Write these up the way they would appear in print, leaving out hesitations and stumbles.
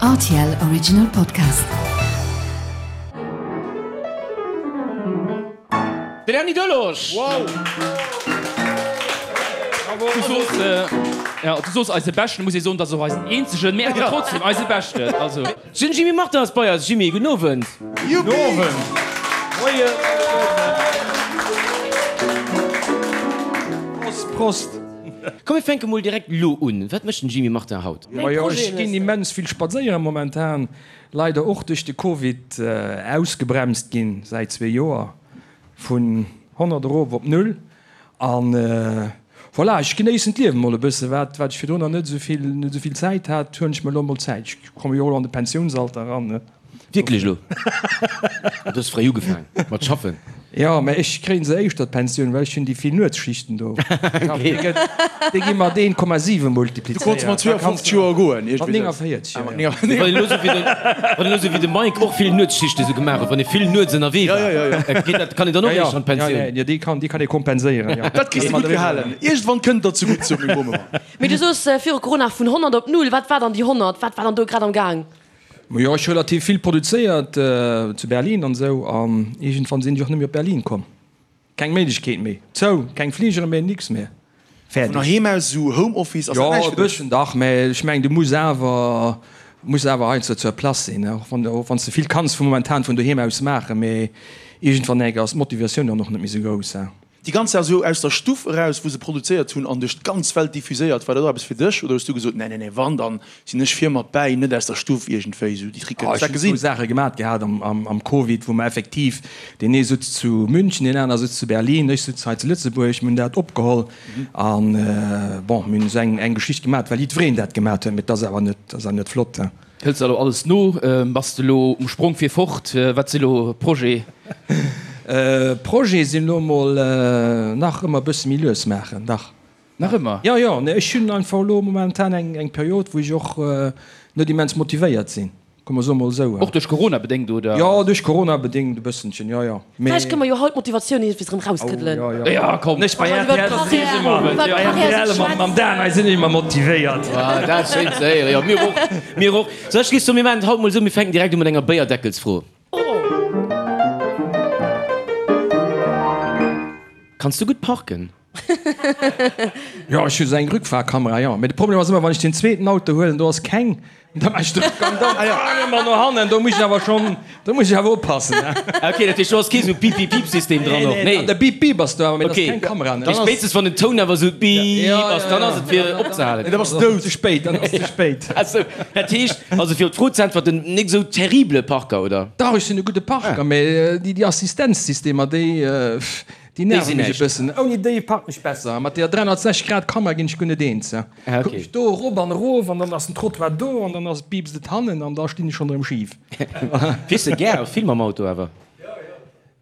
Rtl Original Podcast. Den Erny Delorge! Wow! Du soos, ja, du soos eise Beschten, muss ee soen, dass och eisen eenzegen, mee awer trotzdem eise Beschten. Also. Den Jimmy Martin ass bei eis. Jimmy, gudden Owend. Gudden Owend. Moien. Prost, Prost. Komm mir fänke mol direkt lo un. Wat mécht den Jimmy Martin haut? Majo, ech ginn immens vill spadséieren momentan. Leider och duerch de Covid ausgebremst ginn säit zwee Joer. Vun 100 erof op null. An voilà, ech genéissen d'Liewen mol e bësse. Wat wat ech virdrun nach net esou vill net esou vill Zäit hat, huelen ech mer elo mol Zäit. Ech komme jo och elo an de Pensiounsalter eran, ne. Wierklech elo? Du hues fréi ugefaang mat schaffen. Jo, mä ech kréien se éischter d'Pensioun, well ech hunn déi vill Nuetsschichten do. Déi gi mat 1,7 multiplizéiert. Du konns mat 52 Joer goen, Mat 49, jo. Wann een elo sou wéi de, wann een elo sou wéi de Mike och vill Nuetsschichte sou gemaach huet, wann ee vill nuets ënnerwee war, geet dat, kann een dann och éischter an d'Pensioun? Jo, déi kann, déi kann ee kompenséieren, jo. Dat kriss de gutt gehalen. Iergendwann kënnt der zegutt, sou meng Bom ëmmer. Mee du soos viru Corona vun 100 op null. Wat war dann déi 100? Wat war dann do grad am Gaang? Majo, ech hu relativ vill produzéiert zu Berlin an esou, an iergendwann sinn ech och net méi op Berlin komm. Keng Méiglechkeet méi, zou, keng Fligere méi, nix méi, fäerdeg. Vun heiheem aus, esou Homeoffice, ass dat näischt fir dech? Jo, e bësschen dach, mä ech mengen, du muss awer, muss awer heiansdo zur Place sinn, och wann, och wann s de vill kanns vu momentan vun doheem aus maachen, mä iergendwann enk ass d'Motivatioun dann och net méi esou grouss. Déi ganz Saach esou aus der Stuff eraus, wou se produzéiert hunn an duerch d'ganz Welt diffuséiert, war dat och eppes fir dech oder hues du gesot, nee, nee, nee, wann, dann sinn ech vir mat bäi, net aus der Stuff iergendwéi esou déi Tricken? Ech hunn zwou Saache gemat gehat am Covid, wou mer effektiv, deen ee sutz zu München, deen aner sutz zu Berlin, ech sutz hei zu Lëtzebuerg, mir hunn dat opgeholl an, bon, mir hunn esou eng Geschicht gemat, well jiddwereen dat gemat huet, mee et ass awer net, ass awer net flott. Hëls de elo alles no? Bass de elo um Sprong fir fort? Wat si lo Projet? Projet sinn elo mol nach ëmmer e bësse méi lues maachen, dach. Nach ëmmer? Jo, jo, nee, ech hunn einfach elo momentan eng Period, wou ech och net immens motivéiert sinn, komm mer soe mol esou. Och duerch Corona bedéngt, oder? Jo, duerch Corona bedéngt e bëssenchen, jo, jo. Mee. Vläicht kënne mer jo haut d'Motivatioun iergendwéi erëm rauskëddelen. Oh, jo, jo. Ja, komm. Ech bei rtl sinn ech ëmmer, bei rtl mam, mam Dan hei sinn ech ëmmer motivéiert. Ah, dat ass schéin ze héieren. Jo, mir och, mir och. Sou, ech géif soen, mir maachen et haut mol esou, mir fänken direkt u mat enger Béierdeckelsfro. Kanns du gutt parken? Jo, ech hu sou eng Rückfahrkamera, jo. Mee de Problem ass ëmmer, wann ech den zweeten Auto huelen, do ass keng, da maache ech de Rückgang dann ëmmer no hannen. Do muss ech awer schonn, do muss ech awer oppassen. Ok, dat heescht, do ass kee sou Piip-Piip-Piip-System dran och? Nee, de Piip-Piip ass do awer, mee dat ass keng Kamera. Mee spéitstens wann den Toun awer sou Piip ass, dann ass et fir opzehalen. Nee, da bass de dout. Ze spéit, dann ass ze spéit. Ah sou, dat heescht, also fir op d'Fro ze äntwerten, nik sou terrible Parker, oder? Dach, ech sinn e gudde Parker, mee déi Assistenzsystemer, déi. Déi nerven mech e bëssen. Ouni déi parken ech besser. Mat deeër 360 Grad Kamera ginn ech guer net eens. Kucken ech do erop an erof an dann ass den Trottoir do an dann ass piipst et hannen an da stinn ech schonn erëm schif. Fiers de gär vill mam Auto awer?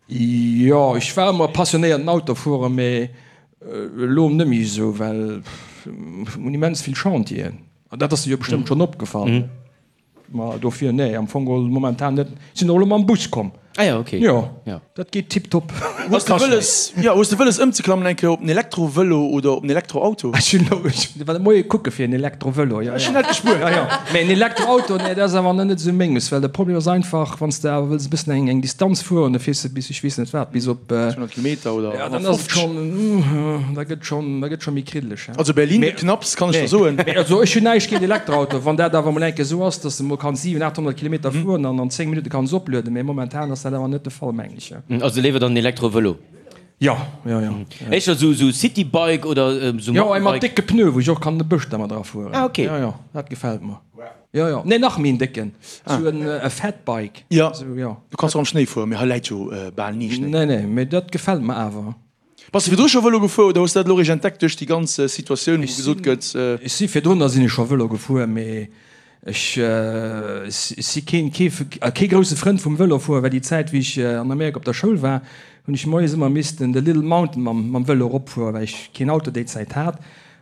Jo, ech war ëmmer e passionéierten Autofuerer, mee elo net méi esou, well mir hunn immens vill Chantieren. An dat ass der jo bestëmmt schonn opgefall. Ma dofir, nee, am Fong geholl momentan net. Sinn och elo mam Bus komm. Ah ja, okay. Jo, ja. Dat geet tiptop. Hues de wëlles, ja, hues de wëlles ëmzeklammen eng Kéier op en Elektrovëlo oder op en Elektroauto? Ech hunn elo, ech war de Moie kucke fir en Elektrovëlo, jo, jo. Ech hunn dat gespuert. Jo, jo. Mä en Elektroauto, nee, dat ass awer nach net esou menges, well de Problem ass einfach, wann s de awer wëlls e bëssen eng, eng Distanz fueren, da fiers de bis ech weess net wat, bis op. 200 Kilometer oder 150. Ja, dann ass et schonn, da gëtt schonn, da gëtt scho méi kriddeleg. Also Berlin gëtt knapps, kann ech der soen. Mee also ech hunn näischt géint Elektroauto, wann dat awer mol eng Kéier esou ass, dass de mol kanns 700, 800 Kilometer fueren an an 10 Minutte kanns oplueden. Mee momentan ass dat awer net de Fall, mengen ech. Also léiwer dann en Elektrovëlo? Jo, jo, jo. Éischter esou esou Citybike oder esou Jo, ee mat décke Pneue, wou ech och kann an de Bësch dermat erafueren. Ah, ok. Jo, jo, dat gefält mer. Jo, jo. Nee, nach méi en décken, esou en e Fatbike. Jo, Esou, jo. du kanns och am Schnéi fueren, mee hei läit jo bal ni Schnéi. Nee, nee, mee dat gefält mer awer. Bass de virdru scho Vëlo gefuer oder hues de dat elo eréischt entdeckt duerch déi ganz Situatioun, wou gesot gëtt. Ech si virdrunner sinn ech scho Vëlo gefuer, mee ech si keen kee grousse Frënd vum Vëlofueren, well déi Zäit wéi ech an Amerika op der Schoul war, hunn ech moies ëmmer missten de Little Mountain mam Vëlo eropfueren, well ech keen Auto déi Zäit hat.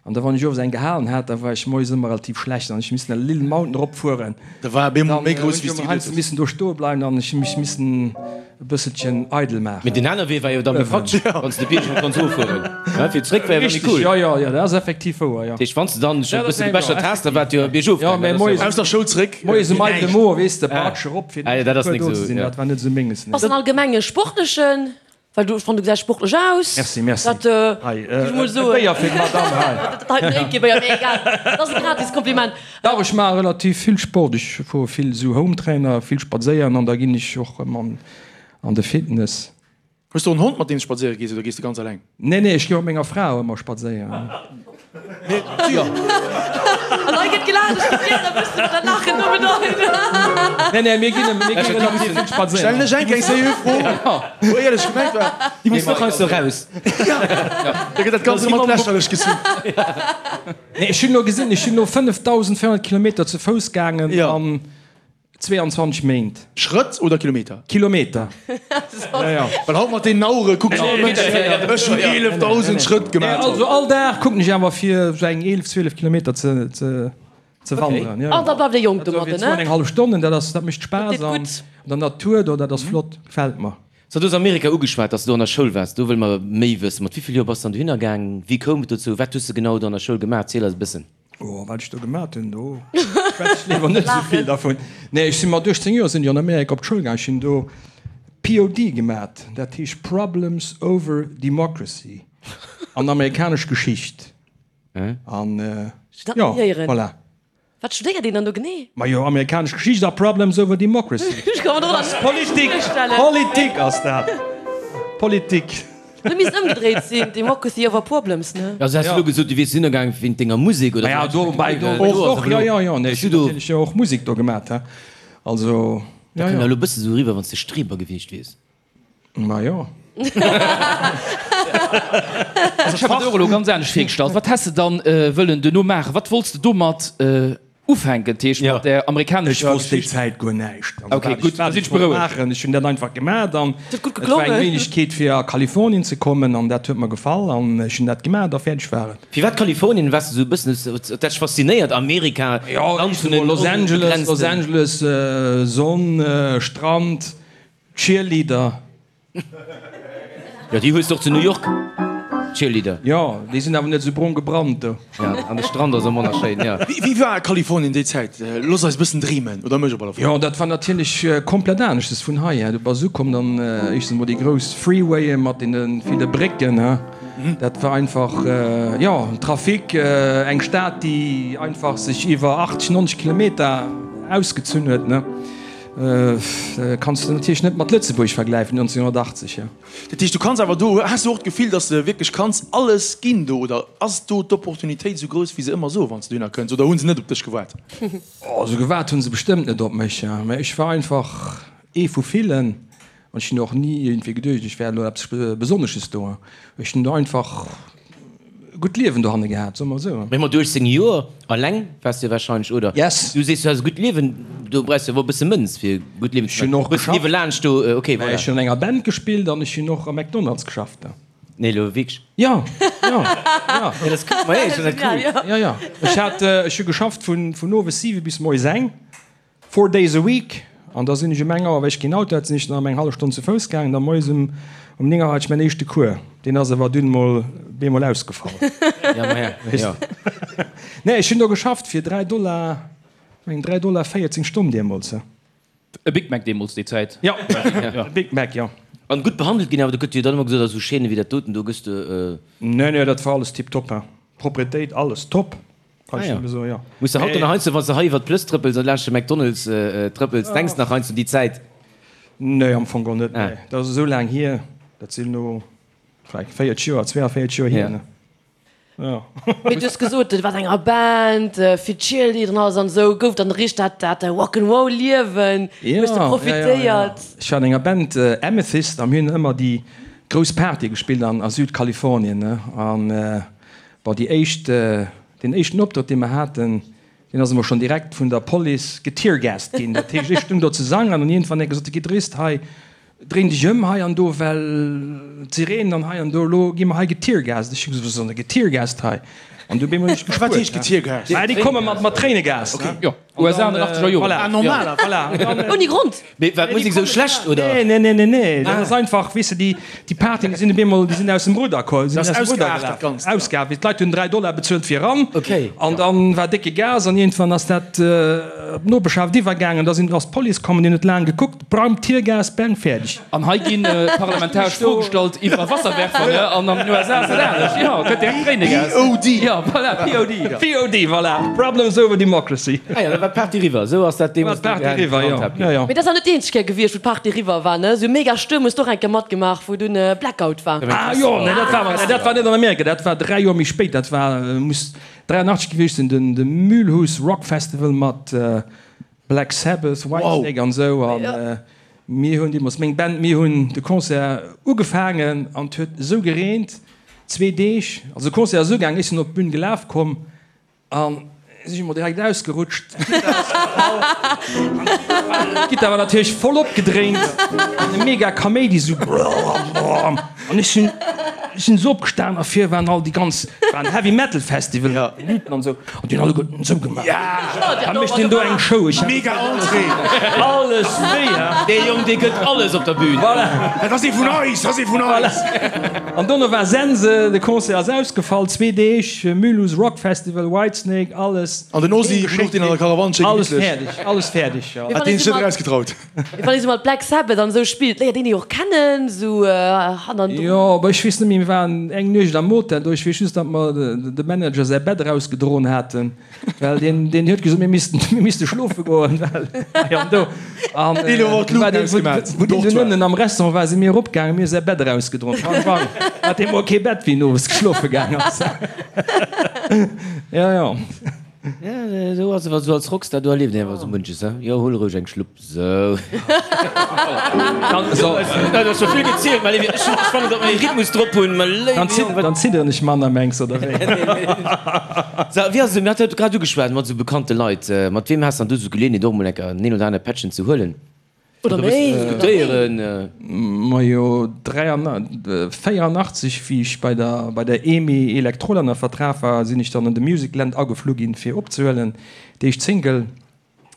An da wann ech owes eng gehalen hat, da war ech moies ëmmer relativ schlecht an ech hu missen de Little Mountain erop fueren. Da war e bemol méi grouss wéi s de geduecht hues. Missen do stoe bleiwen an ech hu mech missen e bësselchen eidel maachen. Mee den aner Wee war jo da méi praktesch, wann s de de Bierg erop kanns eroffueren. Ja, fir zréck war jo méi cool. Jo, jo, jo, dat ass effektiv wouer, jo. Dat heescht, wann s de dann scho e bësse gebechert has, da war et jo biergof gaangen. Ja, mä moies. Aus der Schoul zréck. Moies um eidele Mo, weess de, Baatsch erop, fir ah, dat ass nik do ze sinn, dat war net esou menges, nee. Bass en allgemeng e sportlechen? Well du, ech fannen, du gesäis sportlech aus. Merci, merci. Dat, Hei, géif ech mol e soen. Béier fir d'Madame hei. Dat heiten éngt kee Béier, mee egal. Dat ass e gratis Kompliment. Dach, ech maache relativ vill Sport. Ech fuere vill esou Hometrainer, vill spadséieren an da ginn ech och ëm an de Fitness. Hues de och en Hond mat deem s spadséiere gees oder gees de ganz alleng? Nee, nee, ech gi mat menger Fra och ëmmer spadséieren. An hei gëtt gelaacht, ech géif gären wëssen, wat dat Laachen do bedeit. Nee, nee, mir ginn, mir gi relativ vill spadséieren. Stellen ech eng keng seriö Fro, wou éierlech gemengt war. Déi muss och heiansdo raus. Da gëtt dat Ganzt ëmmer lächerlech gezunn. Nee, ech hunn elo gesinn, ech sinn elo 5.400 Kilometer zu Fouss gaangen an 22 Méint. Schrëtt oder Kilometer? Kilometer. Ja, ja. Well haut mat deenen Auere kuckt all Mënsch, ech hunn 11.000 Schrëtt gemaach. Also all Dag kucken ech awer fir esou eng 11, 12 Kilometer ze, ze, ze wanderen. Ja, ja. An da bleift ee jonk domadden, ne? Eng hallef Stonnen, dat ass, dat mécht Spaass Dat deet an gutt. der Natur do, dat ass flott, gefält mer. So, du hues Amerika ugeschwat, dass du do an der Schoul waars. Do wëlle mer méi wëssen. Mat wéi vill Joer bass du dann dohinner gaang? Wéi koum et dozou? Wat hues du genau do an der Schoul gemaach? Ziel eis e bëssen. Oh, wat ech do gemat hunn, do schwätz ech léiwer net esou vill dervun. Nee, ech sinn mat 18 Joer sinn ech an Amerika op d'Schoul gaang. Ech hunn do POD gemat, dat heescht Problems over Democracy an amerikanesch Geschicht. An jo, voilà. Wat studéiert een dann do genee? Majo, amerikanesch Geschicht a Problems over Democracy. Ech ka mer dat ass Politik, virstellen. Politik ass dat, Politik. Dat misst ëmgedréit sinn, Democracy over Problems, ne? Also has du elo gesot, du wiers dohinner gaang wéint denger Musek, oder? Ja, dobäi och, och, jo, jo, jo, nee, ech hunn natierlech jo och Musek do gemat, he, also, jo, Dat kënnt jo. elo e bësse sou eriwwer, wann s de Streber gewiescht wiers. Ma jo. Also ech hat mer dat och elo ganz anescht virgestallt. Wat häss de dann wëllen duerno maachen? Wat wollts de domat ufänken, dat heescht mat där amerikanescher Ech wosst déi Geschicht? Zäit guer näischt. Also Ok, wat ech gutt, da wat sinn ech ech wollt berouegt. maachen. Ech hunn dat einfach gemaat an Huet gutt et war eng geklongen. Méiglechkeet fir a Kalifornien ze kommen an dat huet mer gefall an ech hunn dat gemaat a fäerdeg war et. Firwat Kalifornien? Waars de sou e bëssen, huet dat dech faszinéiert, Amerika, Jo, Land vun den Los Angeles, Los onbegrenzten. Angeles, Sonn, Strand, Cheerleader. Jo, déi hues de och zu New York, Cheerleader. Jo, déi sinn awer net esou brong gebrannt do. Ja, an de Strand ass och manner schéin, jo. Wéi war Kalifornien déi Zäit? Looss eis e bëssen dreemen, oder mech op alle Fall. Jo, dat war natierlech komplett aneschtes vun hei. Du bass ukomm, dann éischtens emol déi grouss Freewaye mat deene ville Brécken, he. Dat war einfach, jo, Trafic, eng Stad, déi einfach sech iwwer 80, 90 Kilometer ausgezunn huet, ne. Kanns de natierlech net mat Lëtzebuerg vergläifen 1980, jo. Dat heescht, du kanns awer do, has du och d'Gefill, datt s de wierklech kanns alles ginn do, oder ass do d'Opportunitéit esou grouss, wéi se ëmmer soen, wann s de dohinner kënns, oder hu se net op dech gewaart? Oh, esou gewaart hu se bestëmmt net op mech, mä ech war einfach ee vu villen an ech hunn och ni iergendwéi geduecht, ech wär elo eppes Besonnesches do. Ech hunn do einfach Gutt Liewen dohanne gehat, soe mer esou. Mee mat 18 Joer alleng waars de wahrscheinlech, oder? Yes. Du sees, du has e gutt Liewen, do brauchs de awer e bësse Mënz fir e gutt Liewen ze Ech hunn och maachen. Hues geschafft. niewelaanscht do, ok, voilà. Ech hunn an enger Band gespillt an ech hunn och am McDonald's geschafft. Nee, elo wierklech? Jo, jo, jo. Ja, dat ass cool. Ma ech fannen dat cool. Jo, jo. Ech hat, ech hu geschafft vun, vun owes 7 bis moies eng. Four days a week, an da sinn ech um eng Auer, well ech keen Auto hat, sinn ech dann ëm eng hallef Stonn zu Fouss gaangen. Da moies um um 9 Auer hat ech mäin éischte Cours. Deen ass awer dunn mol bemol ausgefall. Ja, ma ja, jo. Nee, ech hunn do geschafft fir 3 Dollar, meng 3 Dollar 14 d'Stonn deemools. E Big Mac deemools, déi Zäit. Jo, e Big Mac, jo. An gutt behandelt ginn, awer do gëtt jo dann ëmmer gesot, a sou Chaîne wéi dat doten, do gëss de. Nee, nee, dat war alles tiptop, hein. Propretéit, alles top. Kann ech Ah, ja. nëmme soen, jo. Muss de haut dann nach heiansdo, wann s de hei iwwer d'Plëss trëppels an laanscht de McDonald's trëppels, denks nach heiansdo un déi Zäit? Nee, am Fong geholl net, Ah. nee. Dat ass esou laang hier, dat sinn elo vläicht 40 Joer, 42 Joer hier, Ja. ne? Jo. Mee du hues gesot, du waars an enger Band, vill Cheerleader an alles an esou. Gouf dann richteg dat, dat Rock'n'Roll-Liewen? Hues de Ja, ja, ja, ja. profitéiert? Ech war an enger Band, Amethyst, a mir hunn ëmmer déi grouss Partye gespillt an a Südkalifornien, ne? An Bon, déi éischt, deen éischten Optrëtt, dee mer haten, deen ass emol schonn direkt vun der Police geteargast ginn. Dat heescht, ech stung do ze sangen an iergendwann huet e gesot, De Gittarist hei, dréin dech ëm hei an do, well d'Sirenen an hei an do, elo gi mer hei geteargast. Ech hu gesot, Wat ass dann e geteargast hei? An du bemol ech Wat heescht getiergast? Ah, déi komme mat mat Tréinegas. Okay. Jo, USA an den 80er Joren. Voilà. Ah, normaler, voilà. Ouni Grond. Mee war d'Musek esou schlecht, oder? Nee, nee, nee, nee, nee. Dat ass einfach, weess de, déi, déi Partyen, déi sinn op eemol, déi sinn aus dem Rudder komm, sinn Das aus dem Rudder ausgeaart, dat gelaf. Ganzt, ja. Ausgeaart. D'Leit hunn 3 Dollar bezuelt fir eran. Okay. An dann war décke Gas an iergendwann ass dat op d'Nopeschhaft iwwergaangen. Da sinn, ass d'Police komm, déi huet laang gekuckt. Bram, Tiergas, bang, fäerdeg. An hei gi parlamentaresch Froe gestallt iwwer Wasserwerfer, ne? An an den USA ass dat anescht. Jo, gëtt direkt Tréinegas. POD. Jo, voilà, POD. POD, voilà, Problems over Democracy. Ah jo, da war d'Party eriwwer. Esou ass dat deemools War d'Party eriwwer, jo. Jo, jo. Mee dat ass awer net déi eenzeg Kéier gewiescht, wou d'Party eriwwer war, ne? Esou mega Stuerm hues de och eng Kéier matgemaach, wou dunn Blackout war. Ah jo, nee, dat war, nee, dat war net an Amerika, dat war 3 Joer méi spéit, dat war, muss 83 gewiescht sinn, den, de Mühlhus Rock Festival mat Black Sabbath, Whitesnake an esou an mir hunn deemools, meng Band, mir hunn de Concert ugefaangen an et huet esou gereent, zwee Deeg, also de Concert ass ugaangen, ech sinn op d'Bün gelaf komm an si emol direkt ausgerutscht, d'Gittar ass gefall, d'Gittar war natierlech voll opgedréint an e mega Kaméidi esou brrrr an ech sinn, ech sinn esou opgestan a vir waren all déi ganz, war en Heavy Metal Festival, déi Luuten an esou. An déi hunn alleguerten esou gemaach. Da mécht deen do eng Show. Ech Mega Entrée! Alles wéi, ha? Dee Jong, dee gëtt alles op der Bühn. Voilà. Dat ass ee vun eis, dat ass ee vun eis. An dono war Sense, de Concert ass ausgefall, zwee Deeg, Mulhouse Rock Festival, Whitesnake, alles. An den Ozzy louch deen an der Karawann schéi Alles gemittlech. fäerdeg, alles fäerdeg, jo. Hat deen sech net erausgetraut. Wann ee sou mat Black Sabbath an esou spillt, léiert een déi och kennen, sou hannendrun. Jo, awer ech weess net méi, mir waren eng Nuecht am Hotel do, ech weess just, datt mer de Manager säi Bett erausgedroen haten, well deen, deen huet gesot, mir missten, mir misste schlofe goen, well hei an do. An wou deen dunn ënnen am Restaurant war, si mir eropgaangen, mir hu säi Bett erausgedroen. Bang, bang, hat dee mol kee Bett, wéi en owes geschlofe gaang ass. Jo, jo. Ja, esou ass et, wann s du als Rockstar, do erlieft een awer esou munches, he? Jo, huel roueg eng Schlupp, sou. Dat ass scho vill gezielt, mä ech fannen, datt mer ee Rhythmus drop hunn, mä léiwe Jong, wat. Dann zidderen ech manner, mengs oder wéi? Sou, wéi ass et, mir hate grad ugeschwat mat esou bekannte Leit, mat weem has dann du esou d'Geleeënheet och emol eng Kéier en een oder anere Pättchen ze huelen? Oder méi. Diskutéieren. Majo, 84, wéi ech bei der bei der EMI Electrol ënner Vertrag war, sinn ech dann an de Musicland ageflu ginn, fir opzehuelen, déi éischt Single.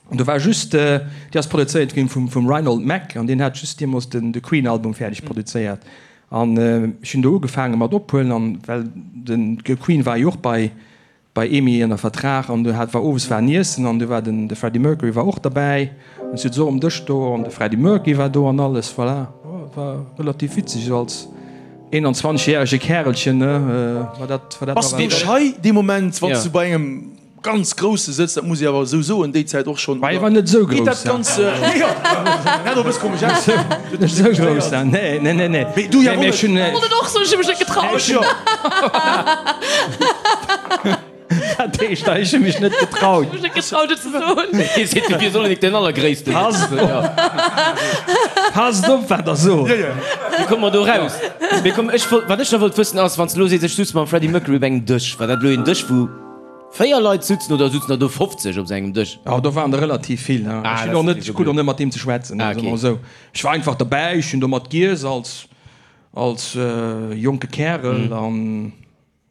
An do war just, déi ass produzéiert ginn vum vum Reinhold Mack, an deen hat just deemools den de Queen-Album fäerdeg produzéiert. An ech hunn do ugefaange mat ophuelen, an well den Queen war jo och bei bei EMI ënner Vertrag an do hat war owes war en Iessen an do war den de Freddie Mercury war och derbäi an ech sot esou um Dësch do an de Freddie Mercury war do an alles voilà war relativ witzeg esou als 21 järege Kärelchen ne war dat war dat Bass du schei dee Moment wann s du bei engem ganz Grousse sëtz, dat muss ee awer esou soen, déi Zäit och schonn, War war net esou geet grouss dat ganz jo hat och e bësse komesch aus net esou grouss nee nee nee nee Mee du jo mee ech hunn Wollt et och soen, ech hu mech net getraut. Ech jo. Dat heescht, ech hu mech net getraut. Ech hu mech net getraut et ze soen. Hie seet, du wiers och net den Allergréissten. Passt op, passt op wat der sot. Wéi komme mer do raus? Mee komm, ech wollt, wat ech nach wollt wëssen ass, wann s de elo sees, ech sutz mam Freddie Mercury op engem Dësch, war dat elo een Dësch wou 4 Leit sutzen oder sutzen der do 50 op esou engem Dësch? Oh, do waren der relativ vill. Ech hunn och net, ech krut och net mat deem ze schwätzen, soe mer esou. Ech war einfach derbäi, ech hunn do mat giess als, als jonke Kärel an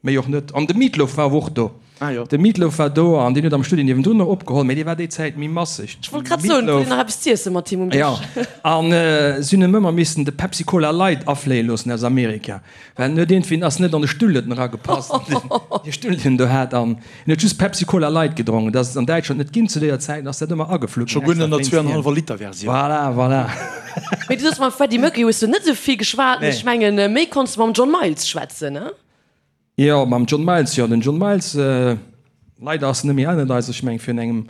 méi och net. An de Meatloaf war awer och do. Ah jo. De Meatloaf war do an deen huet am Studio niewendrun nach opgeholl, mee dee war déi Zäit méi masseg. Ech wollt grad soen, huet een nach eppes z'iesse mat him um Dësch? Jo, an si hunn em ëmmer missen de Pepsi Cola Light afléie loossen aus Amerika, well en huet iergendwéi, ass net an de Stull huet en eragepasst, dee Stull deen en do hat. An en huet just Pepsi Cola Light gedronken. Dat ass et an Däitschland net ginn zu deeër Zäit, ass dat ëmmer ageflu Scho ginn, guer net extra an der wéinst him. zweianenhallwer Liter Versioun. Voilà, voilà. Mee du soos, mam Freddie Mercury hues du net esou vill geschwat. Nee. Ech mengen, méi konns du mam John Miles schwätzen, ne? Jo, mam John Miles, jo, den John Miles, leider ass en net méi ënnert eis, ech mengen virun engem,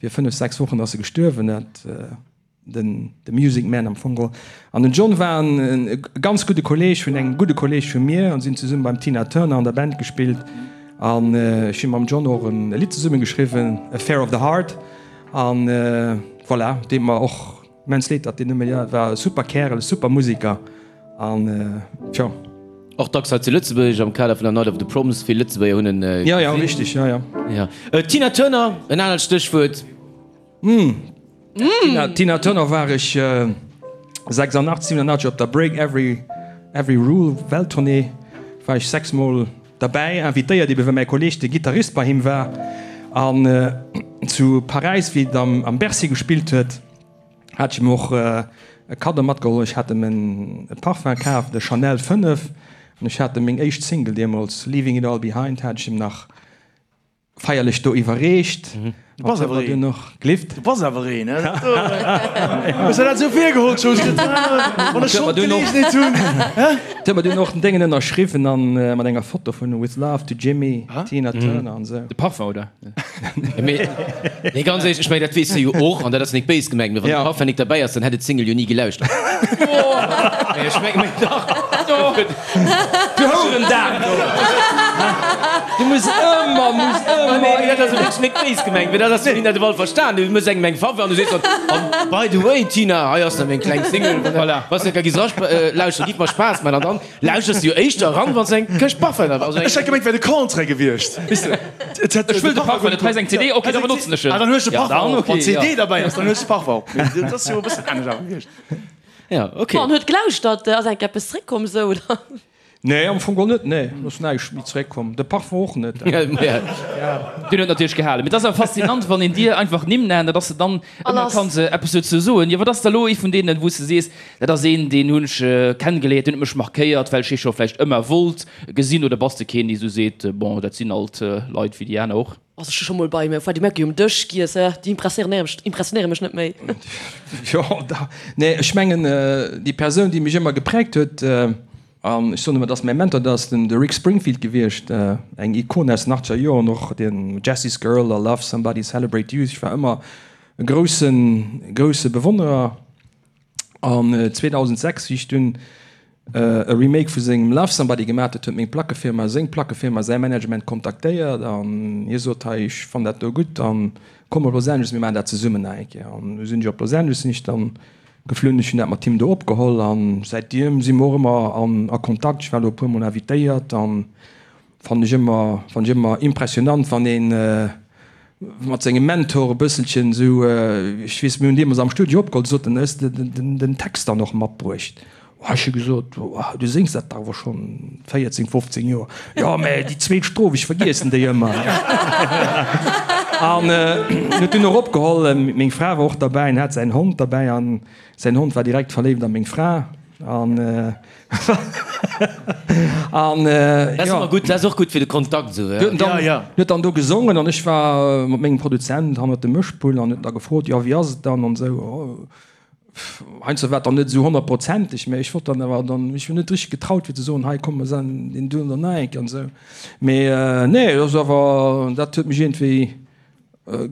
vir 5, 6 Wochen ass e gestuerwen, dat den de Music Man am Fong geholl. An den John war en e ganz gudde Kolleg vun engem gudde Kolleg vu mir an sinn zesumme beim Tina Turner an der Band gespillt an ech hu mam John och en Lidd zesumme geschriwwen, Affair of the Heart an voilà, deet mer och immens leed, datt deen net méi, war e super Kärel, super Musiker. An tjo. Och dacks hei zu Lëtzebuerg am Kader vun der Night of the Proms. Vill Lëtzebuerger hunn en gesinn. Jo, jo, richteg, jo, jo. Jo. Tina Turner, en anert Stéchwuert. Tina, Tina Turner war ech 86, 87 op der Break Every, Every Rule Welttournée war ech 6 mol. Derbäi invitéiert, ebe well mäi Kolleeg de Gittarist bei him war. An zu Paräis, wéi et am Bercy gespillt huet, hat ech him och e Kaddo matgeholl. Ech hat em e Parfum kaf, de Chanel 5, an ech hat em meng éischt Single deemools, Leaving It All Behind, hat ech him nach Feierlech do iwwerreecht. Du bass awer een. Glift. Du bass awer een, hè? Hues der dat esou virgeholl, Jos? Wann ech schonn d'Geleegenheet hunn, hè? Huet mer dunn och den Déngen ënnerschriwwen an mat enger Foto vun With Love to Jimmy, Tina Turner an esou. De Parfum, oder? Mee, nee, ganz éierlech, ech mengen, dat weess de jo och, an dat ass nik béis gemengt, mee wann de Parfum nik derbäi ass, dann hätt et d'Single jo ni gelauschtert. Mee ech mengen, mee dach. Du Hourendag do! Du muss ëmmer, muss ëmmer. Nee, dat ass wierklech net béis gemengt, mee dat ass, wéi dat ewell verstan. Du méchs engem eng Faveur an du sees dann, an by the way, Tina, hei ass nach meng kleng Single. Voilà. Wann s de da giss eralauschteren, giff mer Spaass man. An dann lauschters de jo éischter eran, wann s de eng Këscht Parfum hat. Also eng. Ech hätt gemengt, et wär de Contraire gewiescht. Weess de, et hätt. Ech wëll de Parfum net, hei ass eng CD, ok, da benotzen ech en. Ah, dann hues de Parfum och. Wann d'CD derbäi ass, dann hues de Parfum och. Mee dat ass jo e bëssen anescht awer gewiescht. Ja, ok. An huet gelauschtert, ass enk eppes zréckkomm sou oder? Nee, am Fong geholl net, nee, ass näischt méi zréckkomm, de Parfum och net. Deen huet natierlech gehalen. Mee et ass awer faszinant, wann een dir einfach Nimm nennt, datt s de dann ëmmer kanns eppes dozou soen. Jo, wat ass da lo ee vun deenen, wou s de sees, dat ass een, deen hunn ech kenngeliert, deen huet mech markéiert, well ech hie scho vläicht ëmmer wollt gesinn? Oder bass de keen, dee sou seet, bon, dat sinn alt Leit wéi déi aner och? Also ech hu scho mol bei Freddie Mercury um Dësch giess, déi impressionéiere mech net méi. Jo, da, nee, ech mengen déi Persoun, déi mech ëmmer gepräägt huet, an ech soen ëmmer, dat ass mäi Mentor, dat ass den de Rick Springfield gewiescht, eng Ikon aus den achtzeger Joren, och den Jessie's Girl a Love Somebody, Celebrate Youth. Ech war ëmmer e groussen, grousse Bewonnerer. An 2006, wéi ech dunn e Remake vu sengem Love Somebody gemaat huet, huet meng Plackefirma seng Plackefirma, säi Management kontaktéiert an hie sot, hei ech fannen dat do gutt an komm op Los Angeles, mir maachen dat zesummen nach eng Kéier. An du sinn ech op Los Angeles sinn ech dann geflunn, ech hunn dat mat him do opgeholl an säitdem si mer och ëmmer an a Kontakt. Ech war elo e puer mol invitéiert an Fannen ech ëmmer, fannen ech ëmmer impressionant, wann een mat sengem Mentor e bësselchen esou, ech weess, mir hunn deemools am Studio opgeholl, du sot en, hues de den Text dann och matbruecht? Oh, ech hu gesot, oh, du séngs dat dach awer schonn 14, 15 Joer. Jo, mä déi zweet Stroph, ech vergiessen déi ëmmer. An huet dunn och opgeholl, meng Fra war och derbäi an hat säin Hond derbäi an säin Hond war direkt verléift a meng Fra an. An Dat ass ëmmer gutt, dat ass och gutt fir de Kontakt esou. Huet dann, ja, ja. Huet dann do gesongen an ech war mat mengem Produzent hannert dem Mëschpult an huet da gefrot, jo wéi ass et dann an esou. Oh, heiansdo war et dann net esou honnertprozenteg, mä ech wollt dann awer dann, ech hunn net richteg getraut fir ze soen, hei komm mer sen deen do dann nach eng Kéier an esou. Mee nee, dat ass awer, dat huet mech iergendwéi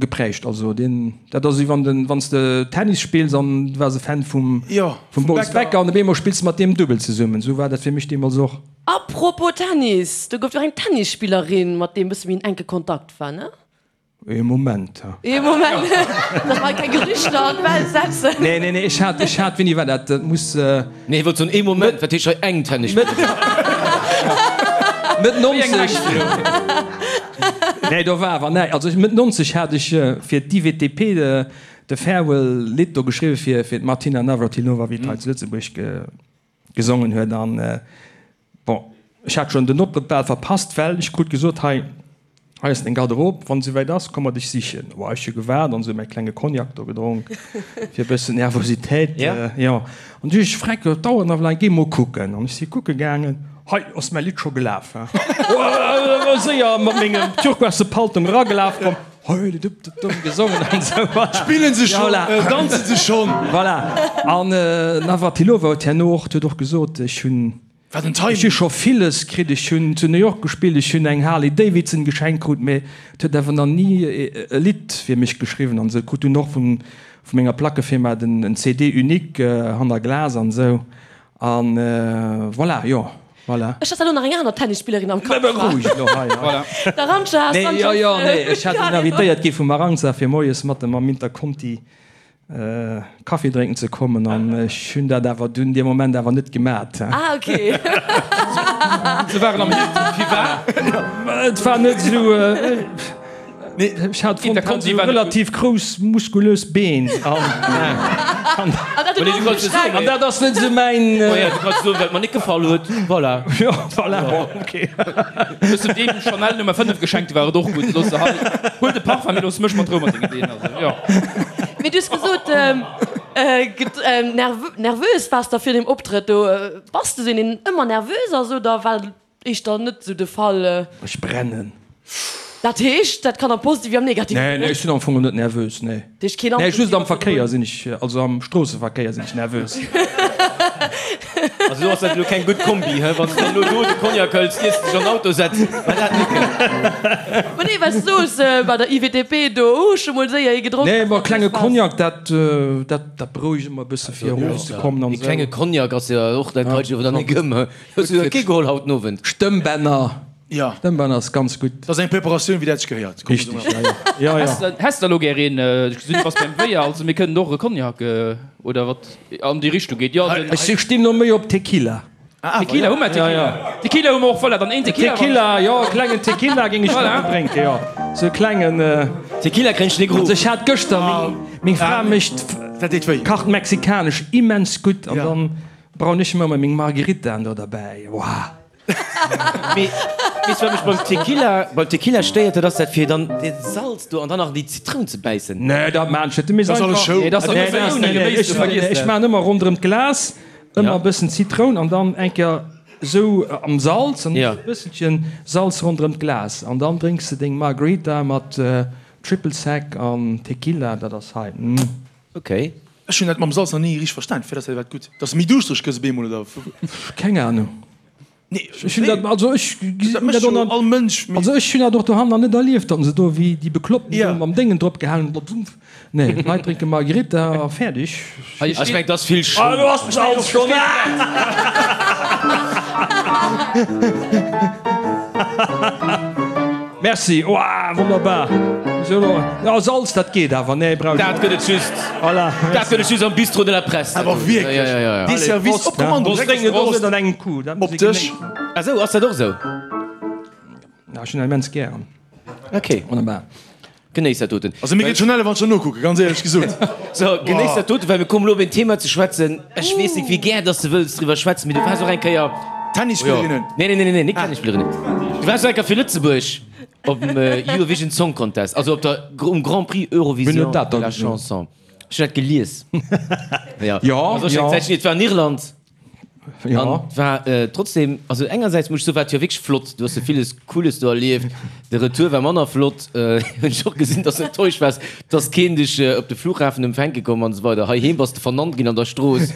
Geprägt, also deen, dat ass wéi wann den, wann s de Tennis spills an du waars e Fan vum, Jo, vum Boris Becker an op eemol spills de mat deem Dubbel zesummen. Esou war dat fir mech deemools och. Apropos Tennis, do gouf jo och eng Tennisspillerin, mat deem bësse méi en enke Kontakt war, ne? Ee Moment. Ee Moment, dass mer hei keng Gerüchter an d'Welt setzen. Nee, nee, nee, ech hat, ech hat, wéini war dat? Dat muss. Nee, hie wollt soen, ee Moment, wat heescht hei eng Tennisspillerin? Mëtt 90. Nee, do war awer näi. Also Mëtt 90 hat ech fir d'IWTP de Farewell Lidd do geschriwwen fir fir d'Martina Navratilova, wéi et hei zu Lëtzebuerg gesongen huet. An bon, ech hat schonn den Optrëtt bal verpasst, well ech krut gesot, hei, Hei ass deng Garderobe, wann et souwäit ass, komm mer dech sichen. Oh, ech hu gewaart an esou mäi klenge Cognac do gedronk, fir e bëssen Nervositéit, jo. An du ech freck, et dauert nach laang, géi mol kucken. An ech si kucke gaangen, hei ass mäi Lidd scho gelaf, he. Oh, séier mat mengem turquoise Paltong eragelaf, komm, hei, de dup, dup, dup, gesongen an esou. Spillen se schonn, danzen se schonn. Voilà. An d'Navratilova huet herno och, huet och gesot, ech hunn. Wat en Timing! Ech hu scho villes kritt, ech hunn zu New York gespillt, ech hunn eng Harley Davidson geschenkt krut, mee et huet awer nach ni e Lidd fir mech geschriwwen an esou. Krut dunn och vun menger Plackefirma den en CD unique hanner Glas an esou an voilà, jo, voilà. Ech hat elo nach eng aner Tennisspillerin am Kapp. Beroueg elo hei, voilà. D'Arantxa Sanchez. Nee, jo, jo, nee, ech hat dunn invitéiert gi vum Arantxa fir moies mat em am Interconti Kaffi drénken ze kommen an ech hunn dat awer dunn dee Moment awer net gemat. Ah ok. Se waren am Hilton, wie war? Et war net esou, ech hat fonnt, hat esou relativ grouss muskulös Been an. An An dat ass net esou mäin. Oh ja, du kanns soen, wat mer net gefall huet. Voilà. Jo, voilà, bon, ok. Hues du deem Chanel Nummer 5 geschenkt, war et och gutt. Looss se hei, huel de Parfum, mee looss mech mat Rou mat dengen Deen. Also, jo. Mee du hues gesot, nervös waars de vir deem Optrëtt do. Bass de sou een, deen ëmmer nervös ass oder war dat éischter net sou de Fall? Ech brennen. Dat heescht, dat kann am Positive wéi am Negativen Nee, nee, ech sinn am Fong net nervös, nee. Dat heescht keen Nee, just am Verkéier sinn ech, also am Stroosseverkéier sinn ech nervös. Also do ass dat elo keng gutt Kombi, he? Wann s de dann elo do de Cognac hëls, iers de dech an den Auto setz, war dat net gutt. Ma nee, well s du soos, bei der IWTP do, hu ech mol séier ee gedronk. Nee, ma klenge Cognac, dat, dat, dat berouegt ëmmer e bësse fir erofzekommen an esou. Ee klenge Cognac ass jo och, dat haut ech awer dann net gëm, he? Hues du der kee geholl haut den Owend? Stëmmbänner. Ja. Stëmmbänner ass ganz gutt. Dat ass eng Preparatioun, wéi dat sech gehéiert. Richteg, ja, ja. Ja, ja. Häss der elo gär een? Ech gesinn, du bass beim Wéier, also mir kënnen och e Cognac oder wat an déi Richtung geet. Jo, den. Ech stinn no méi op Tequila. Tequila hu mer, Tequila. Tequila hu mer och, voilà, dann een Tequila. Tequila, jo, e klengen Tequila géing ech gären drénken, jo. Sou e klengen. Tequila kréien ech net geruff. Also ech hat gëschter, meng, meng Fra mécht. Dat deet wéi. Kacht mexikanesch immens gutt an dann brauen ech mer ëmmer meng Margaritaen do derbäi. Wouah. Mee weess wat mech beim Tequila, beim Tequila stéiert, dat ass dat fir dann dat Salz do an dann nach déi Zitroun ze bäissen. Nee, dat maan ech net. Du misst Dat ass alles einfach. Show. Nee, dat ass Nee, nee, nee, nee, Geméis, ech, du vergiss ech dat. maan ëmmer ronderëm d'Glas ëmmer Ja. e bëssen Zitroun an dann eng Kéier esou am Salz an Ja. e bësselchen Salz ronderëm d'Glas an dann drénks de deng Margarita mat Triple Sec an Tequila, dat ass hei. Mm. Okay. Ech hunn dat mam Salz nach ni richteg verstan. Firwat ass dat iwwerhaapt gutt? Dass de méi duuschtereg gëss op eemol oder? Keng Ahnung. Nee, Ech hunn dat, also ech dat mécht jo all Mënsch. Also ech hunn dat och dohannen nach net erlieft, datt se do wéi déi Bekloppten Ja. do mam Déngen drop gehalen hunn. Nee, d'Leit drénke Margherita a fäerdeg. Hei Ech mengen, et ass vill Show. Ah, do ass de Salz schonn. Merci, oah, wonnerbar. Sou elo, ja, Salz, dat geet awer, nee, brauch ech Dat net. gëtt et just, Voilà, dat merci. gëtt et just am Bistrot de la Presse. Awer wierklech, Ja, ja, ja, ja. dee Service op Kommando, Prost, direkt drénken Prost. och net an engem Coup, dat muss Op ee Dësch. genéissen. Ah sou, ass dat och sou? Ja, ech hunn dat immens gären. Ok. Wonnerbar. Genéiss dat doten. Also mir geet schon elle wann ech der nokucken, ganz éierlech gesot. So, genéiss dat doten, well mir kommen elo op een Thema ze schwätzen. Ech weess net, wéi gär dass de wëlls driwwer schwätzen, mee du waars och eng Kéier. Tennisspillerinnen. Nee, nee, nee, nee, net Tennisspillerinnen. Du waars och eng Kéier fir Lëtzebuerg op dem Eurovision Song Contest, also op der, um Grand Prix Wien Eurovision huet dat de da la gesot? Chanson. Ech hunn dat gelies. Ja, Ja, also ech ja. eng Zäitchen, et war an Irland. Ja. An war trotzdem, also engersäits muss ech soen, war et jo wierklech flott, du hues jo villes Cooles do erlieft. De Retour war manner flott, hunn ech och gesinn, dass du enttäuscht waars, dass keen dech op de Flughafen empfänke komm an esou weider. Heiheem bass de vernannt ginn an der Strooss.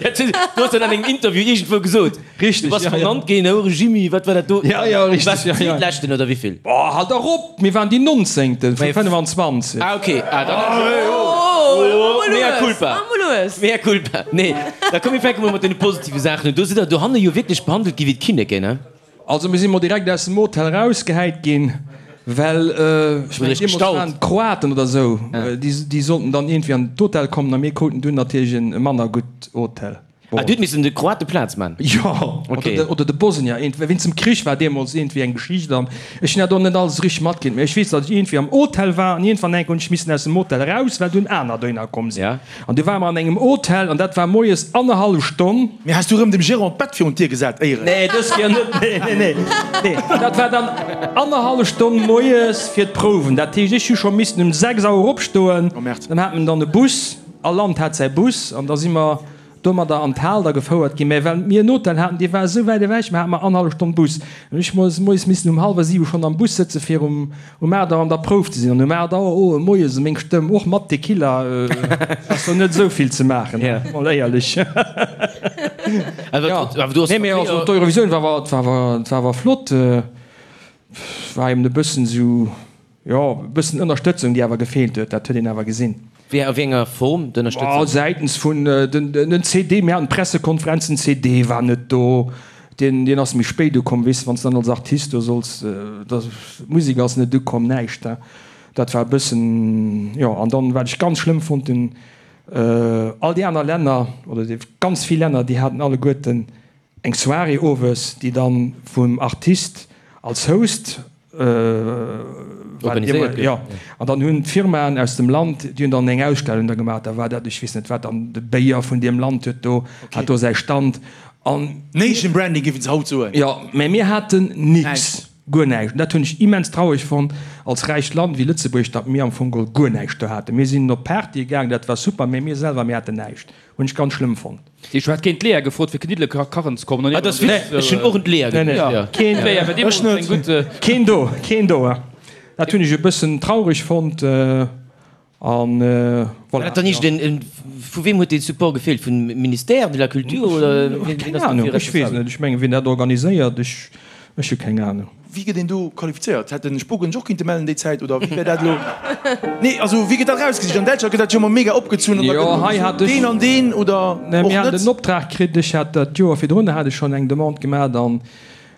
Dat hues du hues dat an engem Interview iergendwou gesot. Richteg, Du bass ja, ja. vernannt ginn, Houere Jimmy, wat war dat do? Ja, ja, Du waars richteg, ja, ja. Zweetleschten oder wéivill? Oh, halt dach op! Mir waren déi Nonzéngten vu 25. Ah, okay. Ah, dann. Oh, Mea culpa. Mea culpa. Nee, da komm mir fänke mol mat deene positive Saachen un. Do sidd der dohanne jo wierklech behandelt gi wéi d'Kinneken, ne? Also mir si mol direkt aus dem Hotel erausgehäit ginn, well, ech mengen deemools waren et d'Kroaten oder esou, déi sollten dann iergendwéi an d'Hotel kommen a mir kruten dunn natierlech e manner gutt Hotel. Ah, du huet missen de Kroate Plaz man? Jo, Okay. oder de Bosnier, iergendwéi. Wéinst dem Krich war deemools iergendwéi eng Geschicht an ech hunn dat och net alles richteg matkritt, mee ech weess, datt ech iergendwéi am Hotel war an iergendwann eng Kéier hunn ech missen aus dem Hotel eraus, well dunn aner dohinner komm sinn. Ja. An du ware mer an engem Hotel an dat war moies annerhallef Stonn. Mee has du rëm dem Gérant d'Bett virun d'Dier gesat, éieren? Nee, dës Kéier net, nee, nee, nee. Nee, dat war dann annerhallef Stonn moies fir d'Prouwen. Dat heescht, ech hu scho missen um 6 Auer opstoen. Oh Merde. Dann hat men dann e Bus, all Land hat säi Bus an da si mer domadder an d'Hal da gefouert ginn. Mä well mir en Hotel haten, dee war esou wäit ewech, mer hate mer annerhallef Stonn Bus. An ech moies moies missen um hallwer siwe schonn am Bus sëtze fir um um 8 Auer an der Prouf ze sinn. An um 8 Auer, oh, moies, meng Stëmm, och mat Tequila, ass do net esou vill ze maachen, mol éierlech. Awer du has Nee, mä also d'Eurovisioun war awer, war awer, war awer flott. War eben e bëssen esou. Jo, e bëssen Ënnerstëtzung, déi awer gefeelt huet, dat huet een awer gesinn. Wéi, a wéi enger Form, d'Ënnerstëtzung? Säitens vun den CD, mir haten Pressekonferenzen, den CD war net do, deen, deen ass méi spéit ukomm, weess de, wann s de dann als Artist do solls, da, d'Musek ass net ukomm, näischt, dat war e bëssen, jo. An dann, wat ech ganz schlëmm fonnt hunn, all déi aner Länner, oder déi ganz vill Länner, déi haten alleguerten eng Soirée owes, déi dann vum Artist als Host. Organiséiert gouf. Jo, an dann hunn d'Firmaen aus dem Land, déi hunn dann eng Ausstellung da gemaach, da war dat, ech weess net wat, dann de Béier vun deem Land huet do, hat do säi Stand an. Nation Branding géifen se haut soen. Jo, mä mir haten nix, guer näischt. An dat hunn ech immens traureg fonnt, als räicht Land wéi Lëtzebuerg, datt mir am Fong geholl guer näischt do haten. Mir sinn op Partye gaang, dat war super, mä mir selwer, mir haten näischt. Hunn ech ganz schlëmm fonnt. Ech hat géint d'Lea gefrot fir Kniddele kachen ze kommen. Ah, dat ass witzeg. Ech hunn och un d'Lea geduecht. Keen, Lea war deemools eng gutt. Keen do, keen do. Dat hunn ech e bëssen traureg fonnt an voilà. Dat dann iergend en, vu weem huet dee Support gefeelt? Vum Ministère de la Culture oder wien Keng Ahnung, ech weess net. Ech mengen, wien dat organiséiert, ech, ech hu keng Ahnung. Wéi gëtt een do qualifizéiert? Hätt den Spogen sech och kinnte mellen déi Zäit oder wéi wär dat elo? Nee, also wéi gëtt dat erausgesicht? An Däitschland gëtt dat jo ëmmer mega opgezunn an da Jo, hei gëtt hat ech, deen an deen oder nee, och mir haten net? den Optrag kritt, ech hat dat d'Joer virdrun hat ech schonn eng Demande gemat an